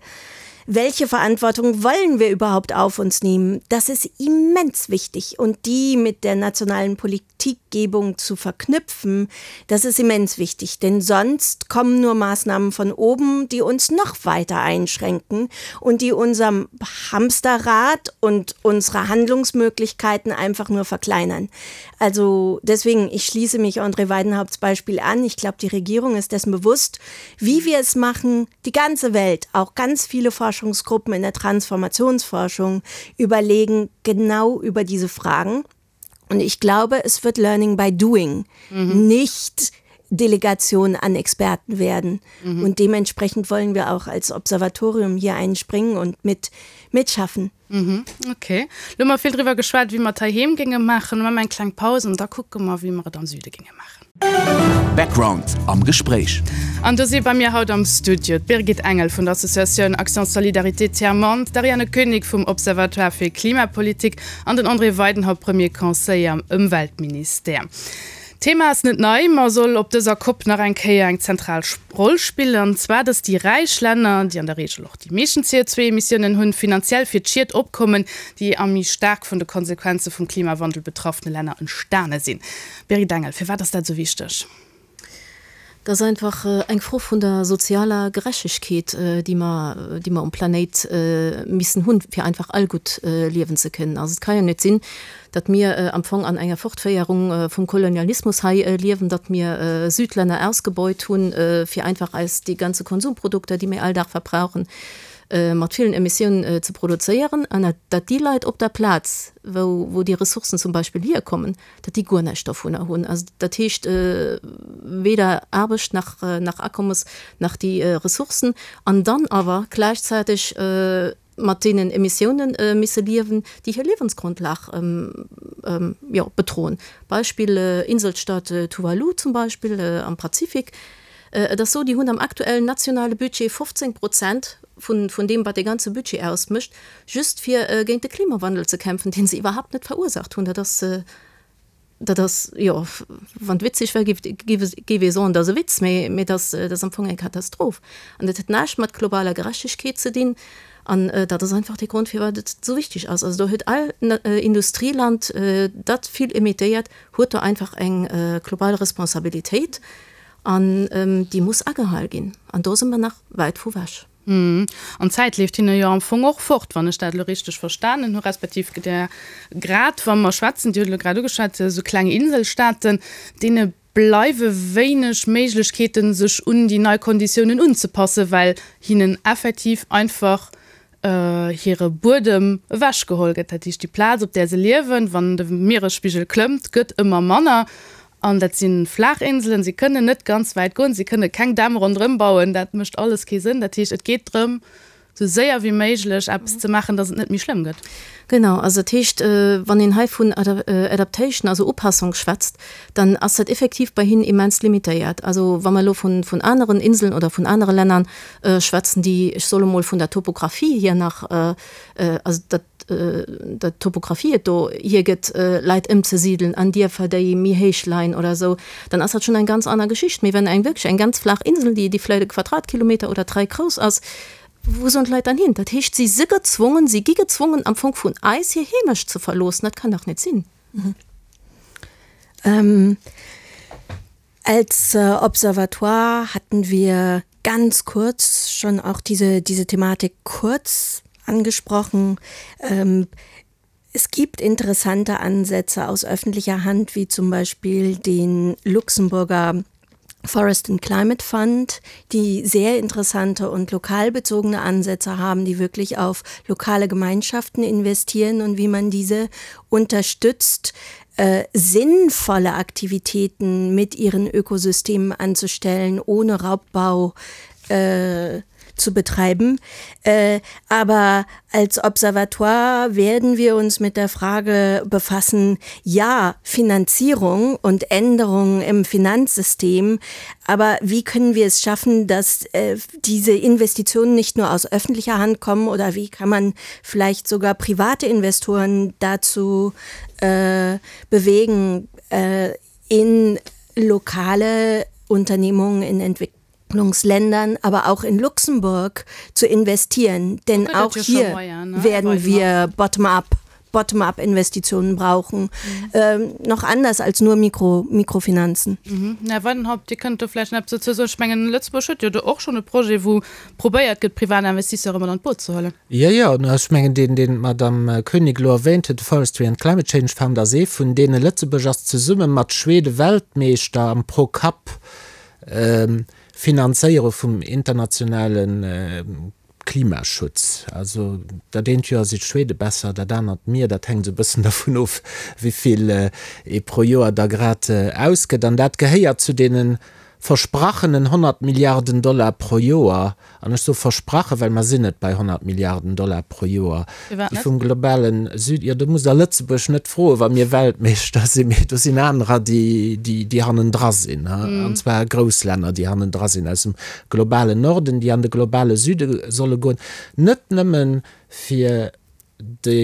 S6: Welche Verantwortung wollen wir überhaupt auf uns nehmen? Das ist immens wichtig und die mit der nationalen Politikgebung zu verknüpfen, das ist immens wichtig, denn sonst kommen nur Maßnahmen von oben, die uns noch weiter einschränken und die unserem Hamsterrad und unsere Handlungsmöglichkeiten einfach nur verkleinern. Also deswegen, ich schließe mich André Weidenhaupts Beispiel an. Ich glaube, die Regierung ist dessen bewusst, wie wir es machen. Die ganze Welt, auch ganz viele Forschungsgruppen in der Transformationsforschung überlegen genau über diese Fragen. Und ich glaube, es wird Learning by Doing, mhm. nicht Delegation an Experten werden. Mhm. Und dementsprechend wollen wir auch als Observatorium hier einspringen und mit mitschaffen.
S3: Mhm, ok. Lo hu mer vill driwwer geschwat, wéi mer et heiheem géinge maachen. Lo maache mer eng kleng Paus an da kucke mer, wéi mer et am Süde géinge maachen.
S1: Background am Gespréich.
S3: An do si bei mir haut am Studio d'Birgit Engel vun der Associatioun Action Solidarité Tiers Monde, d'Ariane Koenig vum Observatoire fir Klimapolitik an den André Weidenhaupt, Premier Conseiller am Ëmweltministère. D'Thema ass net nei, ma soll op dëser Cop nach eng Kéier eng zentral Roll spillen, an zwar, datt déi räich Länner, déi an der Reegel och déi meeschten CO2-Emissiounen hunn, finanziell fir d'Schied opkommen, déi am méi staark vun de Konsequenze vum Klimawandel betraffene Länner entstane sinn. Birgit Engel, firwat ass dat esou wichteg?
S5: Dat ass einfach eng Fro vun der sozialer Gerechtegkeet, déi mer, déi mer um Planéit missen hunn, fir einfach all gutt liewen ze kënnen. Also et ka jo net sinn, datt mir am Fong an enger Fortféierung vum Kolonialismus hei liewen, datt mir Südlänner ausgebeut hunn, fir einfach eis déi ganze Konsumprodukter, déi mir all Dag verbrauchen, mat villen Emissiounen ze produzéieren, an datt déi Leit op der Plaz, wou, wou déi Ressourcen zum Beispill hierkommen, datt déi guer näischt dovunner hunn. Also dat heescht weder Aarbecht nach, nach Akommes nach déi Ressourcen an dann awer gläichzäiteg mat deenen Emissiounen misse liewen, déi hir Liewensgrundlag jo bedroen. Beispill Inselstaat Tuvalu zum Beispill am Pazifik. Et ass esou, déi hunn am aktuellen nationale Budget 15 Prozent vun, vun deem wat dee ganze Budget ausmécht, just fir géint de Klimawandel ze kämpfen, dee se iwwerhaapt net verursaacht hunn. Dat ass, dat ass, jo, wann et witzeg wär, géif, géif, géif ee soen, dat ass e Witz, mee, mee dat ass, dat ass am Fong eng Katastroph. An dat huet näischt mat globaler Gerechtegkeet ze dinn. An dat ass einfach dee Grond, firwat et esou wichteg ass. Also do huet all Industrieland, dat vill emittéiert, huet do einfach eng global Responsabilitéit an déi muss agehal ginn. An do si mer nach wäit vu wech.
S3: An d'Zäit leeft hinne jo am Fong och fort, wann ech dat elo richteg verstanen hu, respektiv der, grad wa mer schwätzen, Dir hutt elo grad ugeschwat, esou kleng Inselstaaten, deene bleiwe wéineg Méiglechkeeten, sech un déi nei Konditiounen unzepassen, well hinnen effektiv einfach hire Buedem ewechgeholl gëtt. Dat heescht, déi Plaz, op där se liewen, wann de Mieresspigel klëmmt, gëtt ëmmer manner. An dat si flaach Inselen, si kënnen net ganz wäit goen, si kënne keng Dämm ronderëm bauen, dat mécht alles kee Sënn. Dat heescht, et geet drëm, esou séier wéi méiglech eppes ze maachen, datt et net méi schlëmm gëtt.
S5: Genau, also dat heescht, wann een hei vun Adaptation, also Upassung schwätzt, dann ass dat effektiv bei hinnen immens limitéiert. Also wa mer elo vun aneren Inseln oder vun anere Länner schwätzen, déi, ech soe mol, vun der Topographie hier nach, also dat, der Topographie et do hiergëtt, Leit ëmzesidelen an Dierfer, déi méi héich leien oder esou, dann ass dat schonn eng ganz aner Geschicht. Mee wenn eng wierklech eng ganz flaach Insel, déi, déi vläicht e Quadratkilometer oder dräi grouss ass, wou sollen d'Leit dann hin? Dat heescht, si si gezwongen, si gi gezwongen am Fong vun eis hir Heemecht ze verloossen. Dat kann dach net sinn.
S6: Als Observatoire hatten wir ganz kurz schon auch diese, diese Thematik kurz angesprochen. Ähm, es gibt interessante Ansätze aus öffentlicher Hand, wie zum Beispiel den Luxemburger Forest and Climate Fund, die sehr interessante und lokalbezogene Ansätze haben, die wirklich auf lokale Gemeinschaften investieren und wie man diese unterstützt, äh, sinnvolle Aktivitäten mit ihren Ökosystemen anzustellen, ohne Raubbau äh, zu betreiben. Äh, aber als Observatoire werden wir uns mit der Frage befassen, ja, Finanzierung und Änderungen im Finanzsystem, aber wie können wir es schaffen, dass äh, diese Investitionen nicht nur aus öffentlicher Hand kommen oder wie kann man vielleicht sogar private Investoren dazu äh, bewegen, äh, in lokale Unternehmungen in Entwicklung Entwicklungsländern, aber auch in Luxemburg zu investieren. Denn auch hier werden wir bottom-up Bottom-up-Investitionen brauchen. Mhm. Ähm, noch anders als nur Mikro, Mikrofinanzen.
S3: Mhm. Här Weidenhaupt, Dir kënnt do vläicht nach eppes dozou soen. Ech mengen, Lëtzebuerg huet jo do och schonn e Projet, wou probéiert gëtt, privat Investisseure mat an d'Boot ze huelen.
S4: Jo, jo, ech mengen, deen, deen d'Madame Koenig elo erwähnt huet, de Forestry and Climate Change Fund, ass ee vun deenen. Lëtzebuerg ass zesumme mat Schwede Weltmeeschter am Pro-Kapp Finanzéiere vum internationale Klimaschutz. Also dat eent Joer si d'Schwede besser, dat anert mir. Dat hänkt esou e bëssen dervun of, wéi vill ee pro Joer da grad ausgëtt. An dat gehéiert zu deene versprachenen 100 Milliarden Dollar pro Joer, An ech soe versprachen, well mer sinn net bei 100 Milliarden Dollar pro Joer,
S3: Firwat
S4: déi
S3: net?
S4: vum globale Süden, jo, do musst Der Lëtzebuerg net froen, wa mir Weltmeeschter sinn, mee do sinn anerer, déi, déi, déi hannendra sinn, an zwar grouss Länner, déi hannendra sinn aus dem globalen Norden, déi an de globale Süde solle goen, net nëmme fir de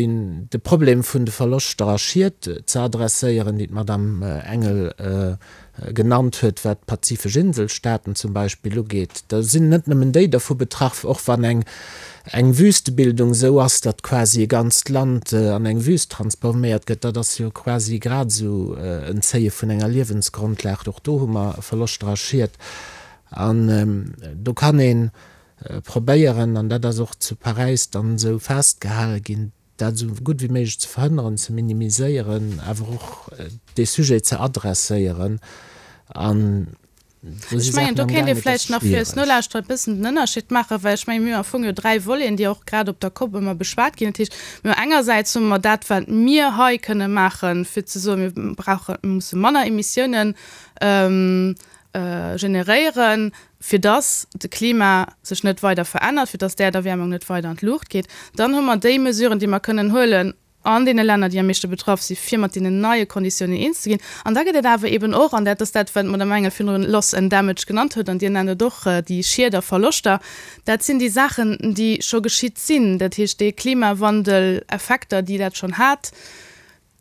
S4: de Problem vun de Verloschter a Schied ze adresséieren, déi d'Madame Engel. genannt huet, wat d'pazifesch Inselstaaten zum Beispill ugeet. Da sinn net nëmmen déi dervu betraff, och wann eng eng Wüstebildung esou ass, datt quasi e ganzt Land an eng Wüst transforméiert gëtt. Dat ass jo quasi grad esou en Zéie vun enger Liewensgrondlag. Och do hu mer Verloschter a Schied. An do kann ee probéieren, an dat ass och zu Paräis dann esou festgehale ginn, dat esou gutt wéi méiglech ze verhënneren, ze minimiséieren, awer och dee Sujet ze adresséieren. An
S3: do si
S4: Saachen
S3: Ech mengen, do
S4: am
S3: kéint
S4: gaang,
S3: ee
S4: et ass
S3: vläicht nach fir eis
S4: schwiereg.
S3: Nolauschterer e bëssen den Ënnerscheed maachen, well ech mengen, mir hunn am Fong jo dräi Voleten, déi och grad op der Kopp ëmmer beschwat ginn. Dat heescht, mir hu engersäits hu mer dat, wat mir hei kënne maachen, fir ze soen, mir brauchen, mir musse manner Emissiounen generéieren, fir dass de Klima sech net weider verännert, fir dass d'Äerderwäermung net weider an d'Luucht geet. Dann hu mer déi Mesuren, déi mer kënnen huelen an deene Länner, déi am meeschte betraff sinn, fir mat deenen neie Konditiounen eens ze ginn. An da gëtt et awer eeben och, an dat ass dat, wat d'Madame Engel virdrun Loss and Damage genannt huet, an Dir nennt et och déi Schied a Verloschter, dat sinn déi Saachen, déi scho geschitt sinn, dat heescht déi Klimawandeleffekter, déi dat schonn hat,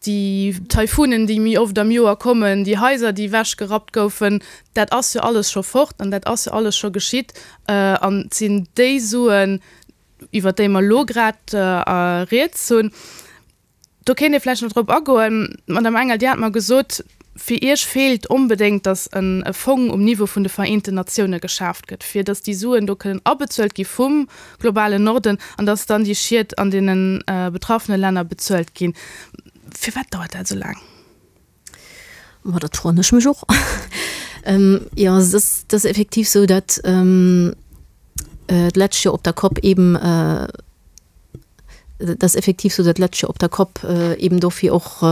S3: Déi Taifunen, déi méi oft am Joer kommen, déi Haiser, déi ewechgerappt goufen, dat ass jo alles scho fort an dat ass jo alles scho geschitt. An et sinn déi Suen, iwwert déi mer elo grad rieds hunn. Do kéint ee vläicht nach drop agoen. D'Madame Engel, Dir hat mer gesot, fir Iech feelt onbedéngt, datt e Fong um Niveau vun de Vereenten Natioune geschaaft gëtt, fir datt déi Suen do kënnen abezuelt gi vum globalen Norden an dass dann déi Schied an deene betraffene Länner bezuelt ginn. Firwat dauert dat esou laang?
S5: Ma dat froen ech mech och. Jo, et ass, et ass effektiv esou, datt d'lescht Joer op der Cop eeben, et ass effektiv esou, datt d'lescht Joer op der Cop eeben dofir och,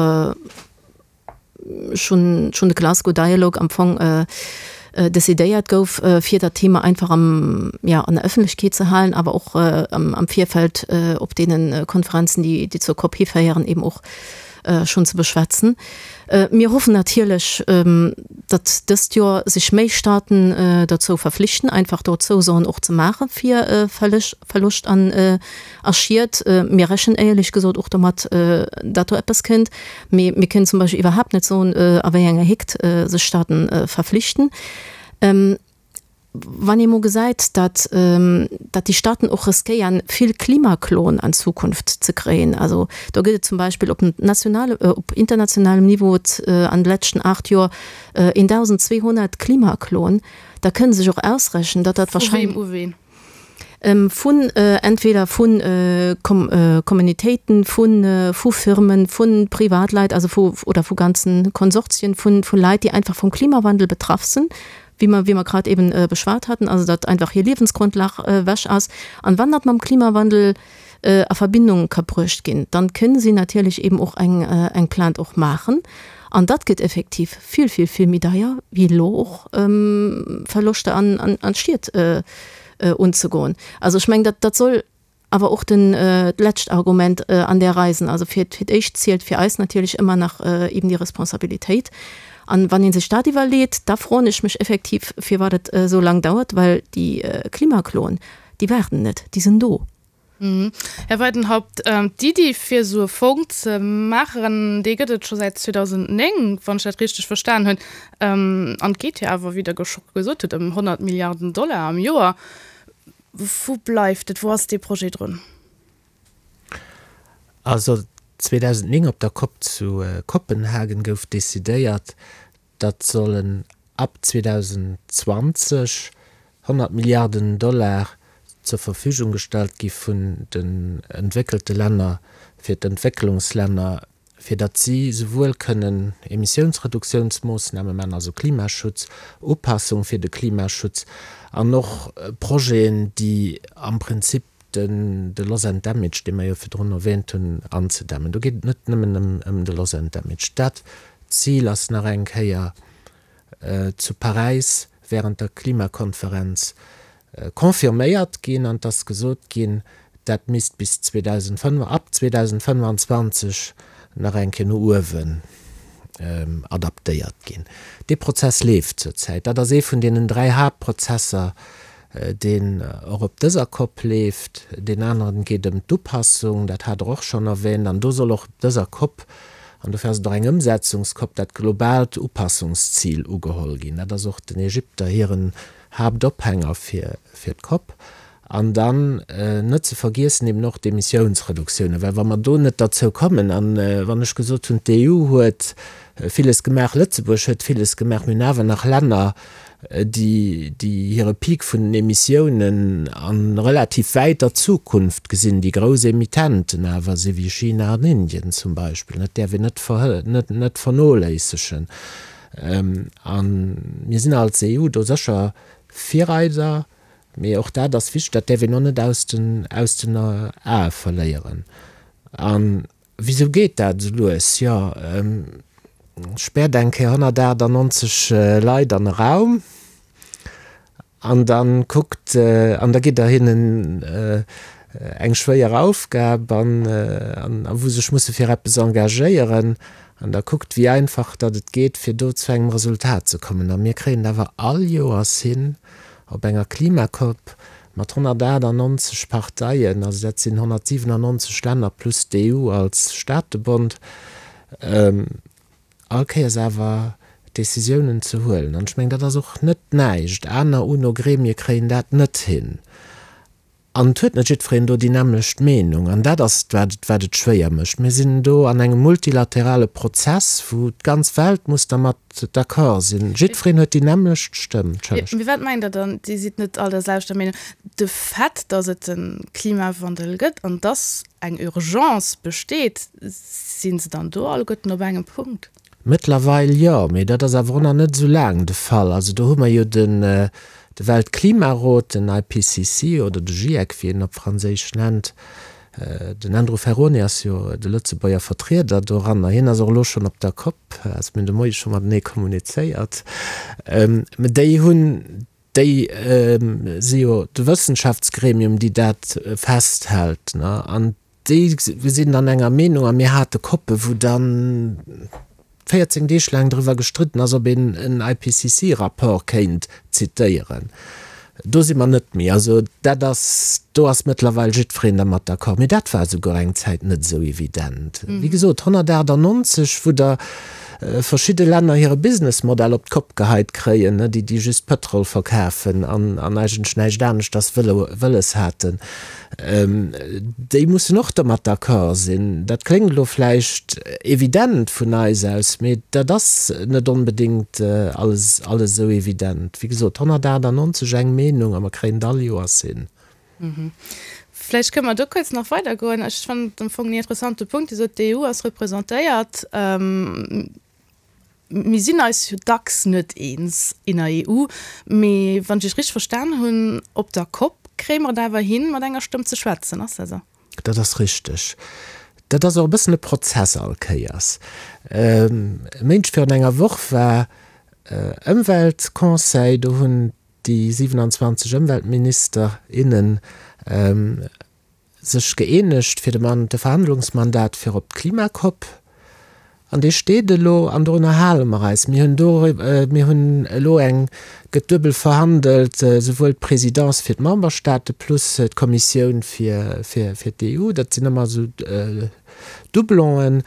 S5: schonn schonn de Glasgow Dialogue am Fong decidéiert gouf, fir dat Thema einfach am, ja, an der Ëffentlechkeet ze halen, awer och am am Virfeld op deene Konferenzen, déi déi zur COP hiféieren, eben och schonn ze beschwätzen. Mir hoffen natierlech, datt dëst Joer sech méi Staaten dozou verflichten, einfach do Zousoen och ze maache fir Verloscht an a Schied. Mir rechnen éierlech gesot och domat, datt do eppes kënnt. Mee mir kënnen zum Beispill iwwerhaapt net soen, a wéi enger Héckt sech Staaten verflichten. Wann ee mol gesäit, datt datt déi Staaten och riskéieren, vill Klimakloen an Zukunft ze kréien, also do gëtt et zum Beispill op nationale, op internationalem Niveau an de leschten 8 Joer 1.200 Klimakloen, da kënne sech och ausrechnen, datt dat
S3: wahrscheinlech. Vu weem u ween?
S5: Vun entweder vu Communautéiten, vu Firmen, vu Privatleit, also vu oder vu ganzen Konsortien vu Leit, déi einfach vum Klimawandel betraff sinn, wéi mer wéi mer grad eben beschwat haten, also datt einfach hir Liewensgrundlag ewech ass. An wann dat mam Klimawandel a Verbindung ka bruecht ginn, dann kënne si natierlech eben och eng eng Plainte och maachen. An dat gëtt effektiv vill, vill, vill méi deier wéi elo och Verloschter an an Schied unzegoen. Also ech mengen, dat dat soll awer och den d'lescht Argument an där Rei sinn. Also fir fir d'éischt zielt fir eis natierlech ëmmer nach eben déi Responsabilitéit. An wann ee sech dat iwwerleet, da froen ech mech effektiv, firwat et esou laang dauert, well déi Klimakloen, déi waarden net, déi sinn do.
S3: Här Weidenhaupt, d'Iddi fir esou e Fong ze maachen, déi gëtt et scho säit 2009, wann ech dat richteg verstan hunn. An et geet jo awer, wéi Der scho gesot hutt, ëm 100 Milliarden Dollar am Joer. Wou bleift et? Wou ass dee Projet drun?
S4: Also 2009 op der Cop zu Kopenhagen gouf decidéiert, datt sollen ab 2020 100 Milliarden Dollar zur Verfügung gestallt gi vun den entwéckelte Länner fir d'Entwécklungslänner, fir datt si souwuel kënnen Emissiounsreduktiounsmoossname maachen, also Klimaschutz, Upassung fir de Klimaschutz an och Projeten, déi am Prinzip den de Loss and Damage, dee mer jo virdrun erwähnt hunn, anzedämmen. Do geet et net nëmmen ëm de Loss and Damage. Dat Zil ass nach eng Kéier zu Paräis während der Klimakonferenz confirméiert ginn an et ass gesot ginn, dat misst bis 2005, ab 2025 nach eng Kéier no uewen adaptéiert ginn. Dee Prozess leeft zurzäit. Dat ass ee vun deenen dräi Haaptprozesser, deen och op dëser Cop leeft. Deen aneren geet ëm d'Upassung, dat hat Der och schonn erwähnt, an do soll och op dëser Cop. An dofir ass et och eng Ëmsetzungscop, dat globaalt Upassungszil ugeholl ginn. Dat ass och den Ägypter hiren Haaptophänger fir d'COP. An dann net ze vergiessen eben och d'Emissiounsreduktiounen, well wa mer do net derzou kommen, a wann ech gesot hunn, d'EU huet villes gemaach, Lëtzebuerg huet villes gemaach, mir hunn awer nach Länner, déi hire Peak vun den Emissiounen a relativ wäiter Zukunft gesinn, déi grouss Emittenten awer si wéi China an Indien zum Beispill, dat däerf een net vernoléissegen. A mir sinn als EU do sécher Virreider, mee och dat ass wichteg, dat däerf een och net aus den Ae verléieren. Wisou geet dat esou lues? Jo, späert eng Kéier 198 Leit an e Raum an da kuckt, an da gitt der hinnen eng schwéier Aufgab an a wou se sech musse fir eppes engagéieren an da kuckt, wéi einfach datt et geet, fir do zu engem Resultat ze kommen. A mir kréien et awer all Joers hin, op enger Klimacop Mat 198 Parteien, also dat sinn 197 Länner plus d'EU als Staatebond, all Kéiers awer Decisiounen ze huelen. An ech mengen, dat ass och net näischt. Aner UNO-Gremie kréien dat net hin. An et huet net jiddwereen do déi nämmlecht Meenung. An dat ass et, wat et, wat et schwéier mécht. Mir sinn do an engem multilaterale Prozess, wou d'ganz Welt muss dermat d'accord sinn. Jiddwereen huet déi nämmlecht Stëmm.
S3: Entschëllegt. Mee wat mengt Der dann, Dir sidd net all der selwechter Meenung? De Fait, datt et de Klimawandel gëtt an datt eng Urgence besteet, si se dann do alleguerten op engem Punkt?
S4: Mëttlerweil jo, mee dat ass awer och nach net esou laang de Fall. Also do hu mer jo den de Weltklimarot, den IPCC oder de GIEC, wéi een en op Franséisch nennt, Den Andrew Ferrone ass jo de Lëtzebuerger Vertrieder doranner. Hien ass och elo schonn op der Cop, also mir hunn de Moie scho matenee kommunizéiert. Mä déi hunn, déi si jo de Wëssenschaftsgremium, déi dat festhält, ne? An déi sinn dann enger Meenung a mir hate Coppe wou dann 14 Deeg laang driwwer gestridden ass, ob een en IPCC-Rapport kéint zitéieren. Do si mer net méi. Also dat ass, do ass mëttlerweil jiddwereen dermat d'accord. Mee dat war esouguer eng Zäit net esou evident. Wéi gesot, 198, wou der verschidde Länner hire Businessmodell op d'Kopp geheit kréien, déi, déi just Pëtrol verkafen an eigentlech näischt aneschters wëlles haten. Déi mussen och domat d'accord sinn. Dat kléngt elo vläicht evident vun eis aus, mee dat ass net onbedéngt alles alles esou evident. Wéi gesot, 198 eng Meenung a mer kréien et all Joers hin.
S3: Vläicht kënne mer do kuerz nach weidergoen. Ech fannen et am Fong en interessante Punkt. Dir sot, d'EU ass representéiert. Mir sinn eis jo dacks net eens in der EU, mee wann ech Iech richteg verstan hunn, op der Cop kréie mer et awer hin, mat enger Stëmm ze schwätzen. Ass dat esou?
S4: Dat ass richteg. Dat ass och e bëssen e Prozess all Kéiers. E Méindeg virun enger Woch war Ëmweltconseil, do hunn déi 27 Ëmweltminister, innen sech gëeenegt fir de de Verhandlungsmandat fir op d'Klimacop, an dee steet elo an dorunner hale mer eis. Mir hunn do, mir hunn elo eng, gëtt duebel verhandelt, souwuel d'Présidence fir d'Memberstaate plus d'Kommissioun fir fir d'EU. Dat sinn ëmmer esou Doublonen.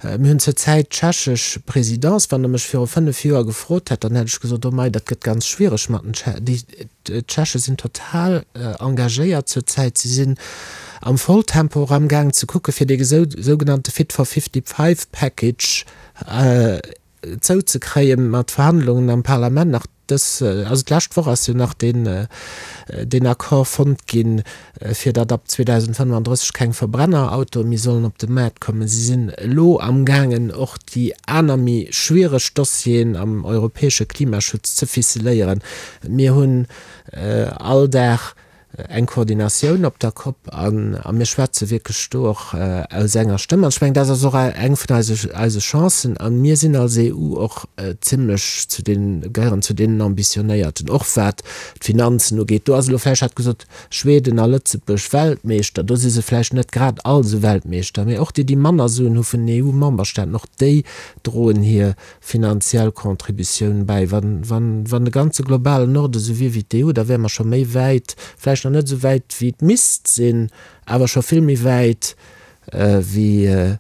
S4: Mir hunn zur Zäit d'tschechesch Présidence. Wann Der mech viru 5 Joer gefrot hätt, dann hätt ech gesot, oh mei, dat gëtt ganz schwiereg mat den Tsche, déi D'Tscheche sinn total engagéiert zur Zäit. Si sinn am Volltempo och amgaang ze kucke fir dee sougenannte Fit for 55 Package zouzekréien, mat Verhandlungen am Parlament nach dës, also d'lescht Woch ass jo nach deen Accord fonnt ginn, fir datt ab 2035 keng Verbrennerautoe méi sollen op de Maart kommen. Si sinn elo amgaangen och déi aner méi schwiereg Dossieren am europäesche Klimaschutz ze ficeléieren. Mir hunn all Dag eng Koordinatioun op der Cop a mir schwätze wierklech do och aus enger Stëmm. An ech mengen, dat ass och eng vun eise Chancen. A mir sinn als EU och zimlech zu den, gehéieren zu deenen Ambitionéierten, och wat d'Finanzen ugeet. Do ass elo vläicht, hat gesot, Schweden a Lëtzebuerg Weltmeeschter, do si se vläicht net grad all esou Weltmeeschter, mee och déi, déi manner Suen hu vun den EU-Memberstaaten, och déi droen hir finanziell Contributioun bäi. Wann, wann, wann de ganze globalen Norde sou wier wéi d'EU, da wäre mer scho méi wäit, vläicht nach net esou wäit wéi et misst sinn, awer scho vill méi wäit wéi.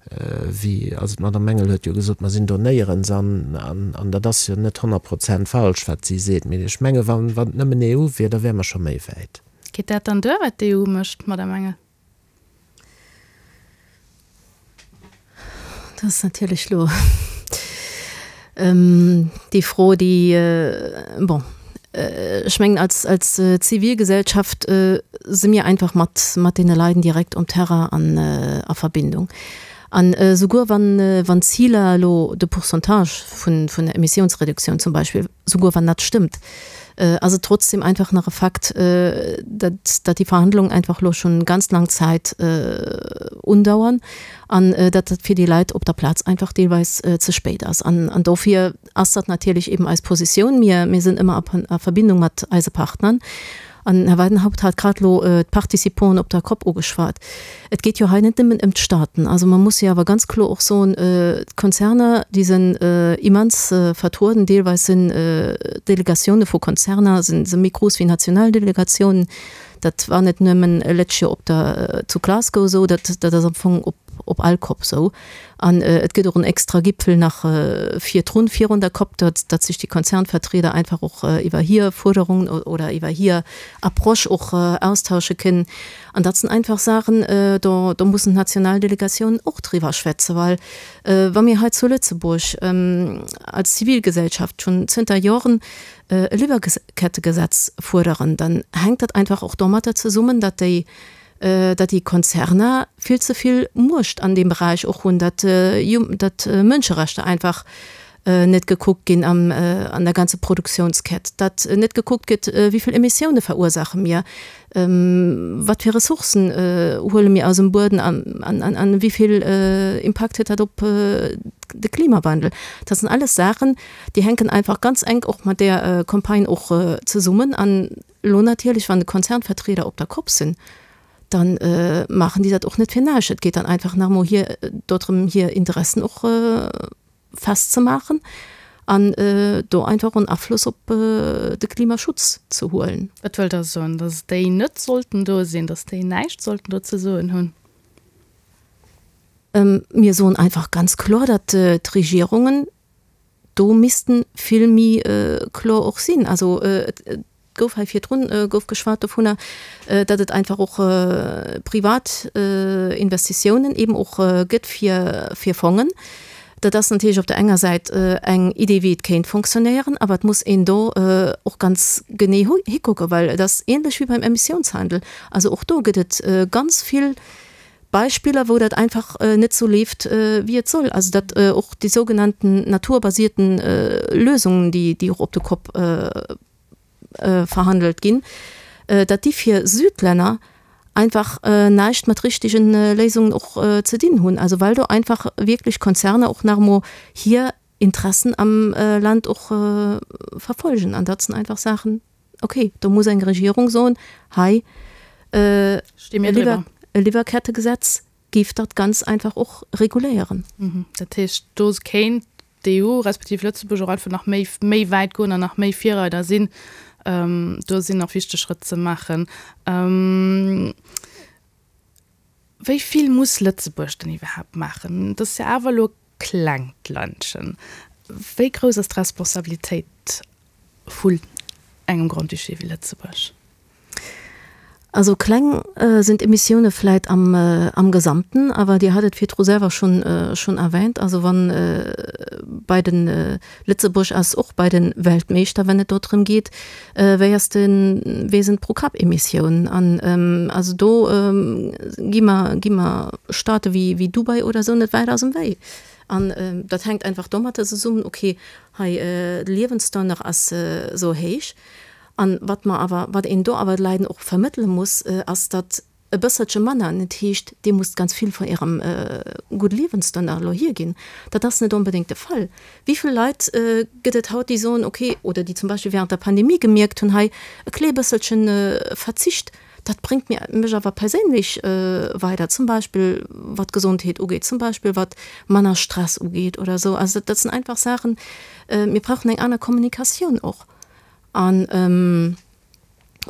S4: Wéi, also d'Madame Engel huet jo gesot, mer sinn do néierens an, an dat ass jo net 100 Prozent falsch, wat si seet. Mee ech menge wann et nëmmen EU wier, da wäre mer scho méi wäit.
S3: Geet dat dann duer, wat d'EU mécht, Madame Engel?
S5: Dat ass natierlech elo déi Fro, déi, bon, ech mengen als, als Zivilgesellschaft si mir einfach mat, mat deene Leiden direkt um Terrain an a Verbindung. An esouguer wann, wann d'Ziler elo, de Pourcentage vun, vun der Emissionsreduktioun zum Beispill, souguer wann dat stëmmt, ass et trotzdem einfach nach e Fakt, datt, datt déi Verhandlungen einfach elo schonn ganz laang Zäit undauern an datt dat fir déi Leit op der Plaz einfach deelweis ze spéit ass. An, an dofir ass dat natierlech eben eis Positioun. Mir, mir sinn ëmmer a, a Verbindung mat eise Partnern. An den Här Weidenhaupt hat grad elo d'Participanten op der Cop ugeschwat. Et geet jo hei net nëmmen ëm d'Staaten. Also mer musse jo awer ganz kloer och soen, d'Konzerner, déi sinn immens vertrueden. Deelweis sinn d'Delegatioune vu Konzerner si méi grouss wéi national Delegatiounen. Dat war net nëmmen letscht Joer op der, zu Glasgow esou, dat ass am Fong op all Cop esou. An et gëtt och en extra Gipfel nach virdrun, virun der Cop, datt datt sech déi Konzernvertrieder einfach och iwwer hir Fuerderungen oder iwwer hir Approche och austausche kënnen. An dat sinn einfach Saachen, do do mussen d'national Delegatiounen och driwwer schwätzen, well wa mir hei zu Lëtzebuerg als Zivilgesellschaft schonn zënter Joren e Liwwerkettegesetz fuerderen, dann hänkt dat einfach och domatter zesummen, datt déi datt déi Konzerner vill ze vill Muecht an deem Beräich och hunn, datt datt Mënscherechter einfach net gekuckt ginn am an der ganze Produktiounskett, datt net gekuckt gëtt, wéi vill Emissioune verursaache mir, wat fir Ressourcen huele mir aus dem Bueden an an wéi vill Impakt huet dat op de Klimawandel. Dat sinn alles Saachen, déi hänken einfach ganz enk och mat där Campagne och zesummen an Elo natierlech, wann de Konzernvertrieder op der Kopp sinn, da maachen déi dat och net fir näischt. Et geet dann einfach nach emol hir dodrëm, hir Interessen och festzemaachen an do einfach och en Afloss op de Klimaschutz ze huelen.
S3: Wat wëllt Der soen? Datt déi net sollten do sinn, datt déi näischt sollten do ze soen hunn?
S5: Mir soen einfach ganz kloer, datt d'Regierungen do missten vill méi kloer och sinn. Also et gouf hei virdrun gouf geschwat dovunner, datt et einfach och privat Investitiounen eben och gëtt fir fir Fongen. Dat ass natierlech op der enger Säit eng Idee wéi et kéint fonctionnéieren, awer et muss een do och ganz genee hikucken, well et ass ähnlech wéi beim Emissiounshandel. Also och do gëtt et ganz vill Beispiller, wou dat einfach net sou leeft, wéi et soll. Also datt och déi sougenannten naturbasierten Lösungen, déi och op de Kopp verhandelt ginn, datt déi fir Südlänner einfach näischt mat richtegen Léisungen och ze dinn hunn. Also well do einfach wierklech Konzerner och nach emol hir Interessen am Land och verfolgen. An dat sinn einfach Saachen, Ok, do muss eng Regierung soen, hei, e Liwwerkettegesetz géif dat ganz einfach och reguléieren.
S3: Dat heescht, do kéint d'EU respektiv Lëtzebuerg och einfach nach méi, méi wäit goen an nach méi Virreider sinn. Do sinn nach wichteg Schrëtt ze maachen. Wéi vill muss Lëtzebuerg denn iwwerhaapt maachen? Et ass jo awer elo e klengt Ländchen. Wéi grouss ass d'Responsabilitéit vu engem Grand-Duché wéi Lëtzebuerg?
S5: Also kleng sinn d'Emissioune vläit am am Gesamten, awer Dir hat et virdru selwer schonn schonn erwähnt, also wann bei den Lëtzebuerg ass och bei den Weltmeeschter wenn et do drëm geet, wéi ass den, wéi sinn d'Pro-Kapp-Emissiounen an also do gi mer gi mer Staate wéi wéi Dubai oder esou net wäit aus dem Wéi. An dat hänkt einfach domatter zesummen, okay, hei de Liewensstandard ass esou héich. An wat mer awer, wat een do awer de Leiden och vermëttele muss, ass, datt e bësselche manner net heescht, Dir musst ganz vill vun Ärem gudde Liewensstandard elo hierginn. Dat ass net onbedéngt de Fall. Wéi vill Leit gëtt et haut, déi soen, okay, oder déi zum Beispill während der Pandemie gemierkt hunn, hei e klee bësselchen Verzicht, dat bréngt mir, mech awer perséinlech weider, zum Beispill wat d'Gesondheet ugeet, zum Beispill wat manner Stress ugeet oder esou. Also dat sinn einfach Saachen, mir brauchen eng aner Kommunikatioun och. An.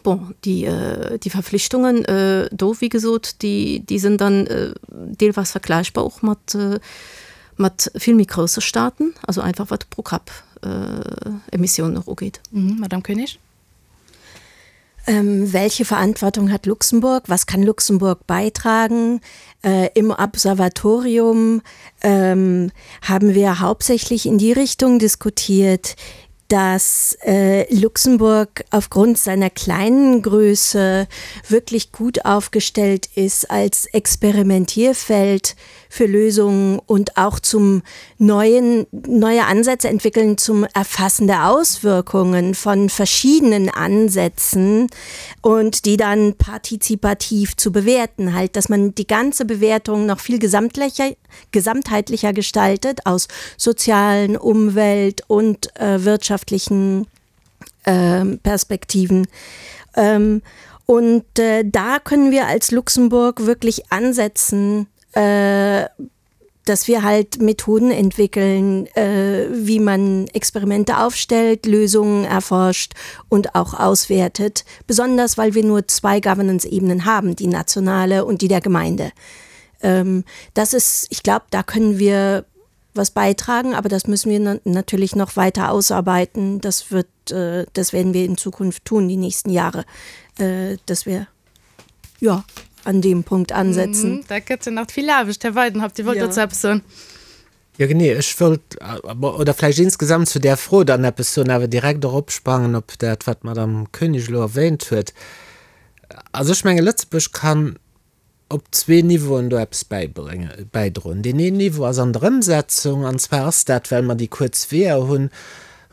S5: Bon, déi, déi Verflichtungen do, wéi gesot, déi, déi sinn dann deelweis vergläichbar och mat, mat vill méi grousse Staaten, also einfach wat d'Pro-Kapp-Emissionen och ugeet.
S3: Madame Koenig.
S6: Welche Verantwortung hat Luxemburg? Was kann Luxemburg beitragen? Äh, Im Observatorium ähm, haben wir hauptsächlich in die Richtung diskutiert, dass äh, Luxemburg aufgrund seiner kleinen Größe wirklich gut aufgestellt ist als Experimentierfeld für Lösungen und auch zum neuen neue Ansätze entwickeln zum Erfassen der Auswirkungen von verschiedenen Ansätzen und die dann partizipativ zu bewerten halt, dass man die ganze Bewertung noch viel gesamtlicher, gesamtheitlicher gestaltet aus sozialen, Umwelt und äh, wirtschaftlichen äh, Perspektiven. Ähm, und äh, da können wir als Luxemburg wirklich ansetzen, äh, dass wir halt Methoden entwickeln, äh, wie man Experimente aufstellt, Lösungen erforscht und auch auswertet, besonders weil wir nur zwei Governance-Ebenen haben, die nationale und die der Gemeinde. Ähm, das ist ich glaube, da können wir was beitragen, aber das müssen wir natürlich noch weiter ausarbeiten. Das wird äh, das werden wir in Zukunft tun die nächsten Jahre, äh, dass wir ja an dem Punkt ansetzen.
S3: Mm, da gëtt nach vill Aarbecht. Här Weidenhaupt, Dir wollt ja. dozou eppes soen?
S4: Ja genee, ech wollt oder vläicht insgesamt zu där Fro dann eppes soen, awer direkt och opsprangen op dat, wat d'Madame Koenig elo erwähnt huet. Also ech menge Lëtzebuerg kann op zwee Niveauen do eppes bäibréngen, bäidroen. Deen een Niveau ass an der Ëmsetzung, an zwar ass dat, well mer déi kuerz Weeër hunn.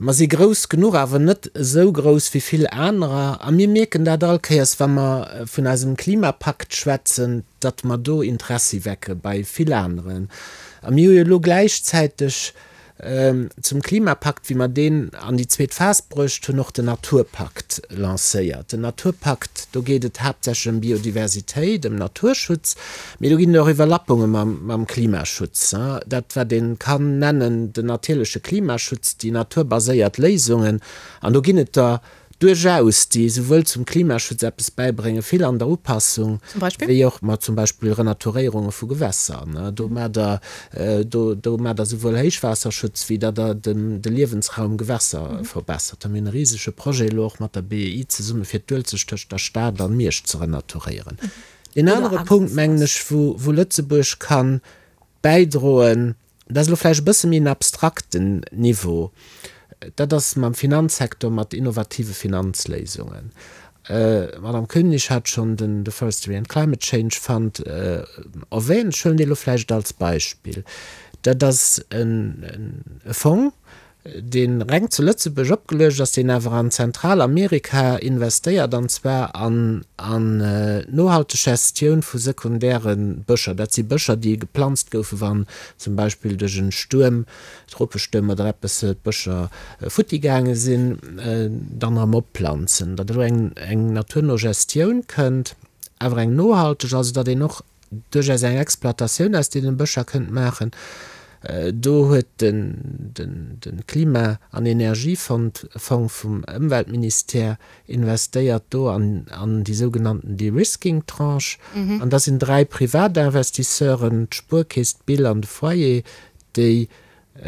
S4: Mer si grouss genuch, awer net esou grouss wéi vill anerer. A mir mierken dat all Kéiers, wa mer vun eisem Klimapakt schwätzen, datt mer do Interessi wecke bei vill aneren. A mir hu jo elo gläichzäiteg Zum Klimapakt, wéi mer deen an déi zweet Phas bruecht hunn, och den Naturpakt lancéiert. Den Naturpakt, do geet et haaptsächlech ëm Biodiversitéit, ëm Naturschutz, mee do ginn et och Iwwerlappunge mam Klimaschutz. Dat, wat ee kann nennen den natierleche Klimaschutz, déi naturbaséiert Léisungen. An do ginn et der duerchaus, déi esouwuel zum Klimaschutz eppes bäibréngen, vill an der Upassung, wéi och, ma zum Beispill Renaturéierunge vu Gewässer, ne, do maacht Der, do, do maacht Der esouwuel Héichwaasserschutz, wéi datt Der den, de Liewensraum Gewässer verbessert. Da mir hunn e risege Projet elo och mat der BEI zesumme fir d'Uelzecht tëscht der Stad an Miersch ze renaturéieren. Deen anere Punkt, mengen ech, wou, wou Lëtzebuerg ka bäidroen, Dat ass elo vläicht e bësse méi en abstrakten Niveau. Dat ass mam Finanzsektor, mat innovative Finanzléisungen. D'Madame Koenig hat schonn den Forestry and Climate Change Fund erwähnt. Ech huelen dee elo vläicht als Beispill. Dat ass e Fong, dee reng zu Lëtzebuerg opgeluecht ass, deen awer an Zentralamerika investéiert, an zwar an d'nohalteg Gestioun vu sekundäre Bëscher. Dat si Bëscher, déi geplanzt goufen, wann zum Beispill duerch en Stuerm, Tropestuerm oder eppes, d'Bëscher futti gaange sinn, dann erëm opplanzen. Datt elo eng naturno Gestioun kënnt, awer eng nohalteg, also datt een och duerchaus eng Exploitatioun aus deenen Bëscher kënnt maachen. Do huet de Klima an Energiefond Fong vum Ëmweltministère investéiert do an an déi sougenannten De-Risking-Tranche. An da sinn 3 Privatinvestisseuren, d'Spuerkeess, d'BIL an de Foyer, déi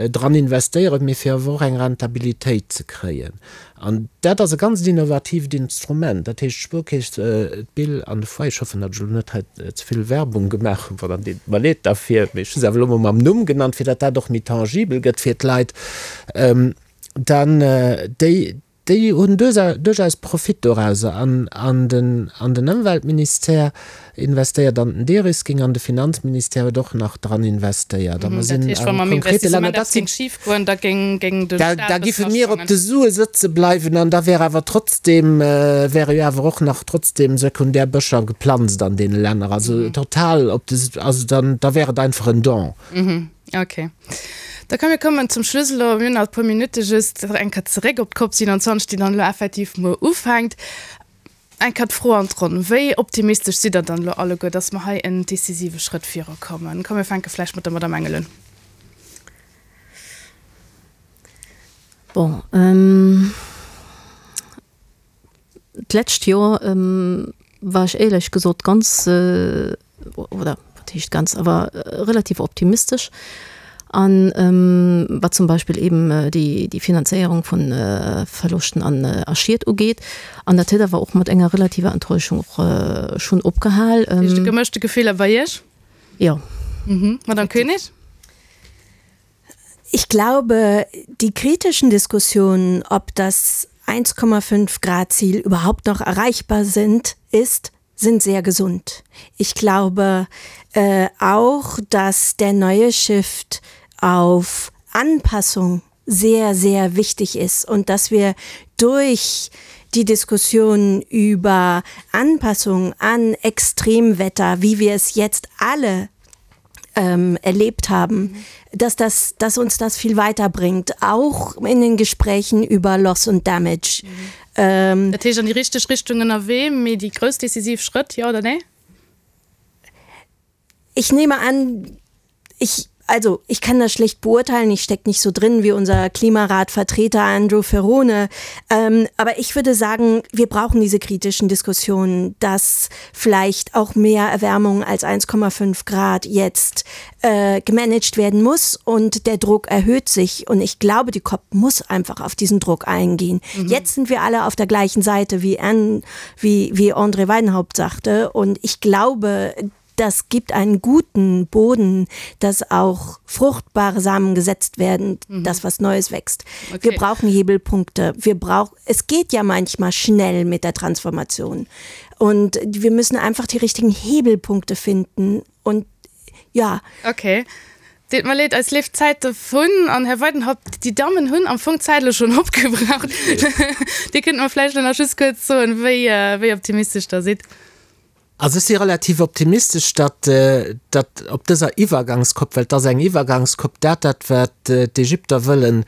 S4: dran investéieren, mee fir awer och eng Rentabilitéit ze kréien. An dat ass e ganzt innovatiivt Instrument. Dat heescht, d'Spuerkeess, d'BIL an de Foyer, ech hoffen, datt ech elo net hei ze vill Werbung gemaach hunn, dann deet et mer leed derfir, mee ech hu se awer elo mol mam Numm genannt, fir datt dat och méi tangibel gëtt fir d'Leit, dann déi, Déi hunn duerchaus Profit dorauser an an den an den Ëmweltministère investéiert an den Derisking an de Finanzministère huet och nach dran investéiert a mer sinn a konkrete Länner. Dat sinn, da giffe mir op de Sue sëtze bleiwen an da wär awer trotzdem, wäre jo awer och nach trotzdem sekundär Bëscher geplanzt an deene Länner. Also total op de, also dann, da wär et einfach en Don.
S3: Ok. Da komm mir kommen zum Schluss elo, mir hunn nach e puer Minutte just, eng Kéier zeréck op d'Cop 27, déi dann elo effektiv muer ufänkt. Eng Kéier d'Fro an d'Ronn, Wéi optimistesch sidd Der dann elo alleguer, datt mer hei en decisive Schrëtt virukommen? Komm mir fänke vläicht mat der Madamm Engel un.
S5: Bon, D'lescht Joer war ech éierlech gesot ganz, oder wat heescht ganz, awer relativ optimistesch an wat zum Beispill eben déi déi Finanzéierung vu Verloschten an a Schied ugeet. An dat huet awer och mat enger relativer Enttäuschung och schonn opgehal.
S3: Dat heescht gemëschte Gefiller bei Iech?
S5: Jo.
S3: Madame Koenig?
S6: Ich glaube, die kritischen Diskussionen, ob das 1,5 Grad Ziel überhaupt noch erreichbar sind, ist, sind sehr gesund. Ich glaube äh, auch, dass der neue Shift auf Anpassung sehr, sehr wichtig ist und dass wir durch die Diskussion über Anpassung an Extremwetter, wie wir es jetzt alle ähm, erlebt haben, mhm. dass, das, dass uns das viel weiterbringt, auch in den Gesprächen über Loss und Damage.
S3: Mhm. Ähm, Dat heescht an déi richteg Richtung ënnerwee, mee déi grouss decisiv Schrëtt, jo oder nee?
S6: Ich nehme an, ich also ich kann das schlecht beurteilen, ich stecke nicht so drin wie unser Klimaratvertreter Andrew Ferrone. Ähm, aber ich würde sagen, wir brauchen diese kritischen Diskussionen, dass vielleicht auch mehr Erwärmung als 1,5 Grad jetzt äh, gemanagt werden muss und der Druck erhöht sich. Und ich glaube, die COP muss einfach auf diesen Druck eingehen. Mhm. Jetzt sind wir alle auf der gleichen Seite, wie, Anne, wie, wie André Weidenhaupt sagte. Und ich glaube, das gibt einen guten Boden, dass auch fruchtbare Samen gesetzt werden, mhm. dass was Neues wächst. Okay. Wir brauchen Hebelpunkte. Wir brauchen, es geht ja manchmal schnell mit der Transformation. Und wir müssen einfach die richtigen Hebelpunkte finden und ja.
S3: Okay. Deet mer leed, eis leeft d'Zäit dovun. An Här Weidenhaupt, déi Dammen hunn am Fong d'Zäit elo schonn opgebraucht. Dir kënnt mer vläicht elo nach just kuerz soen, wéi, wéi optimistesch Der sidd.
S4: Also ech si relativ optimistesch, datt, datt op dëser Iwwergangskopp, well et ass eng Iwwergangskopp, dat, dat wat d'Ägypter wëllen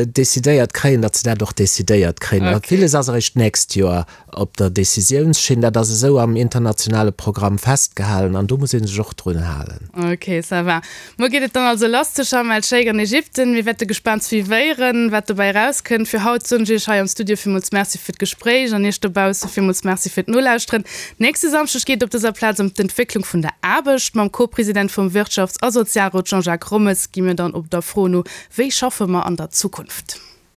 S4: decidéiert kréien, datt se dat och decidéiert kréien. A villes ass eréischt d'nächst Joer op der Décisiounsschinn. Dat ass esou am internationale Programm festgehalen an do muss ee sech och drun halen.
S3: Ok, ça va. Muer geet et dann also lass zu Sharm el-Sheikh an Ägypten. Mir wäerte gespaant suivéieren, wat dobäi erauskënnt. Fir haut soen ech Iech hei am Studio villmools Merci fir d'Gespréich an Iech dobausse villmools Merci fir d'Nolauschteren. Nächste Samschdeg geet et op dëser Plaz ëm d'Entwécklung vun der Aarbecht. Mam Co-President vum Wirtschafts a Sozialrot Jean-Jacques Rommes gi mir dann op der Fro no, Wéi schaffe mer an der Zukunft?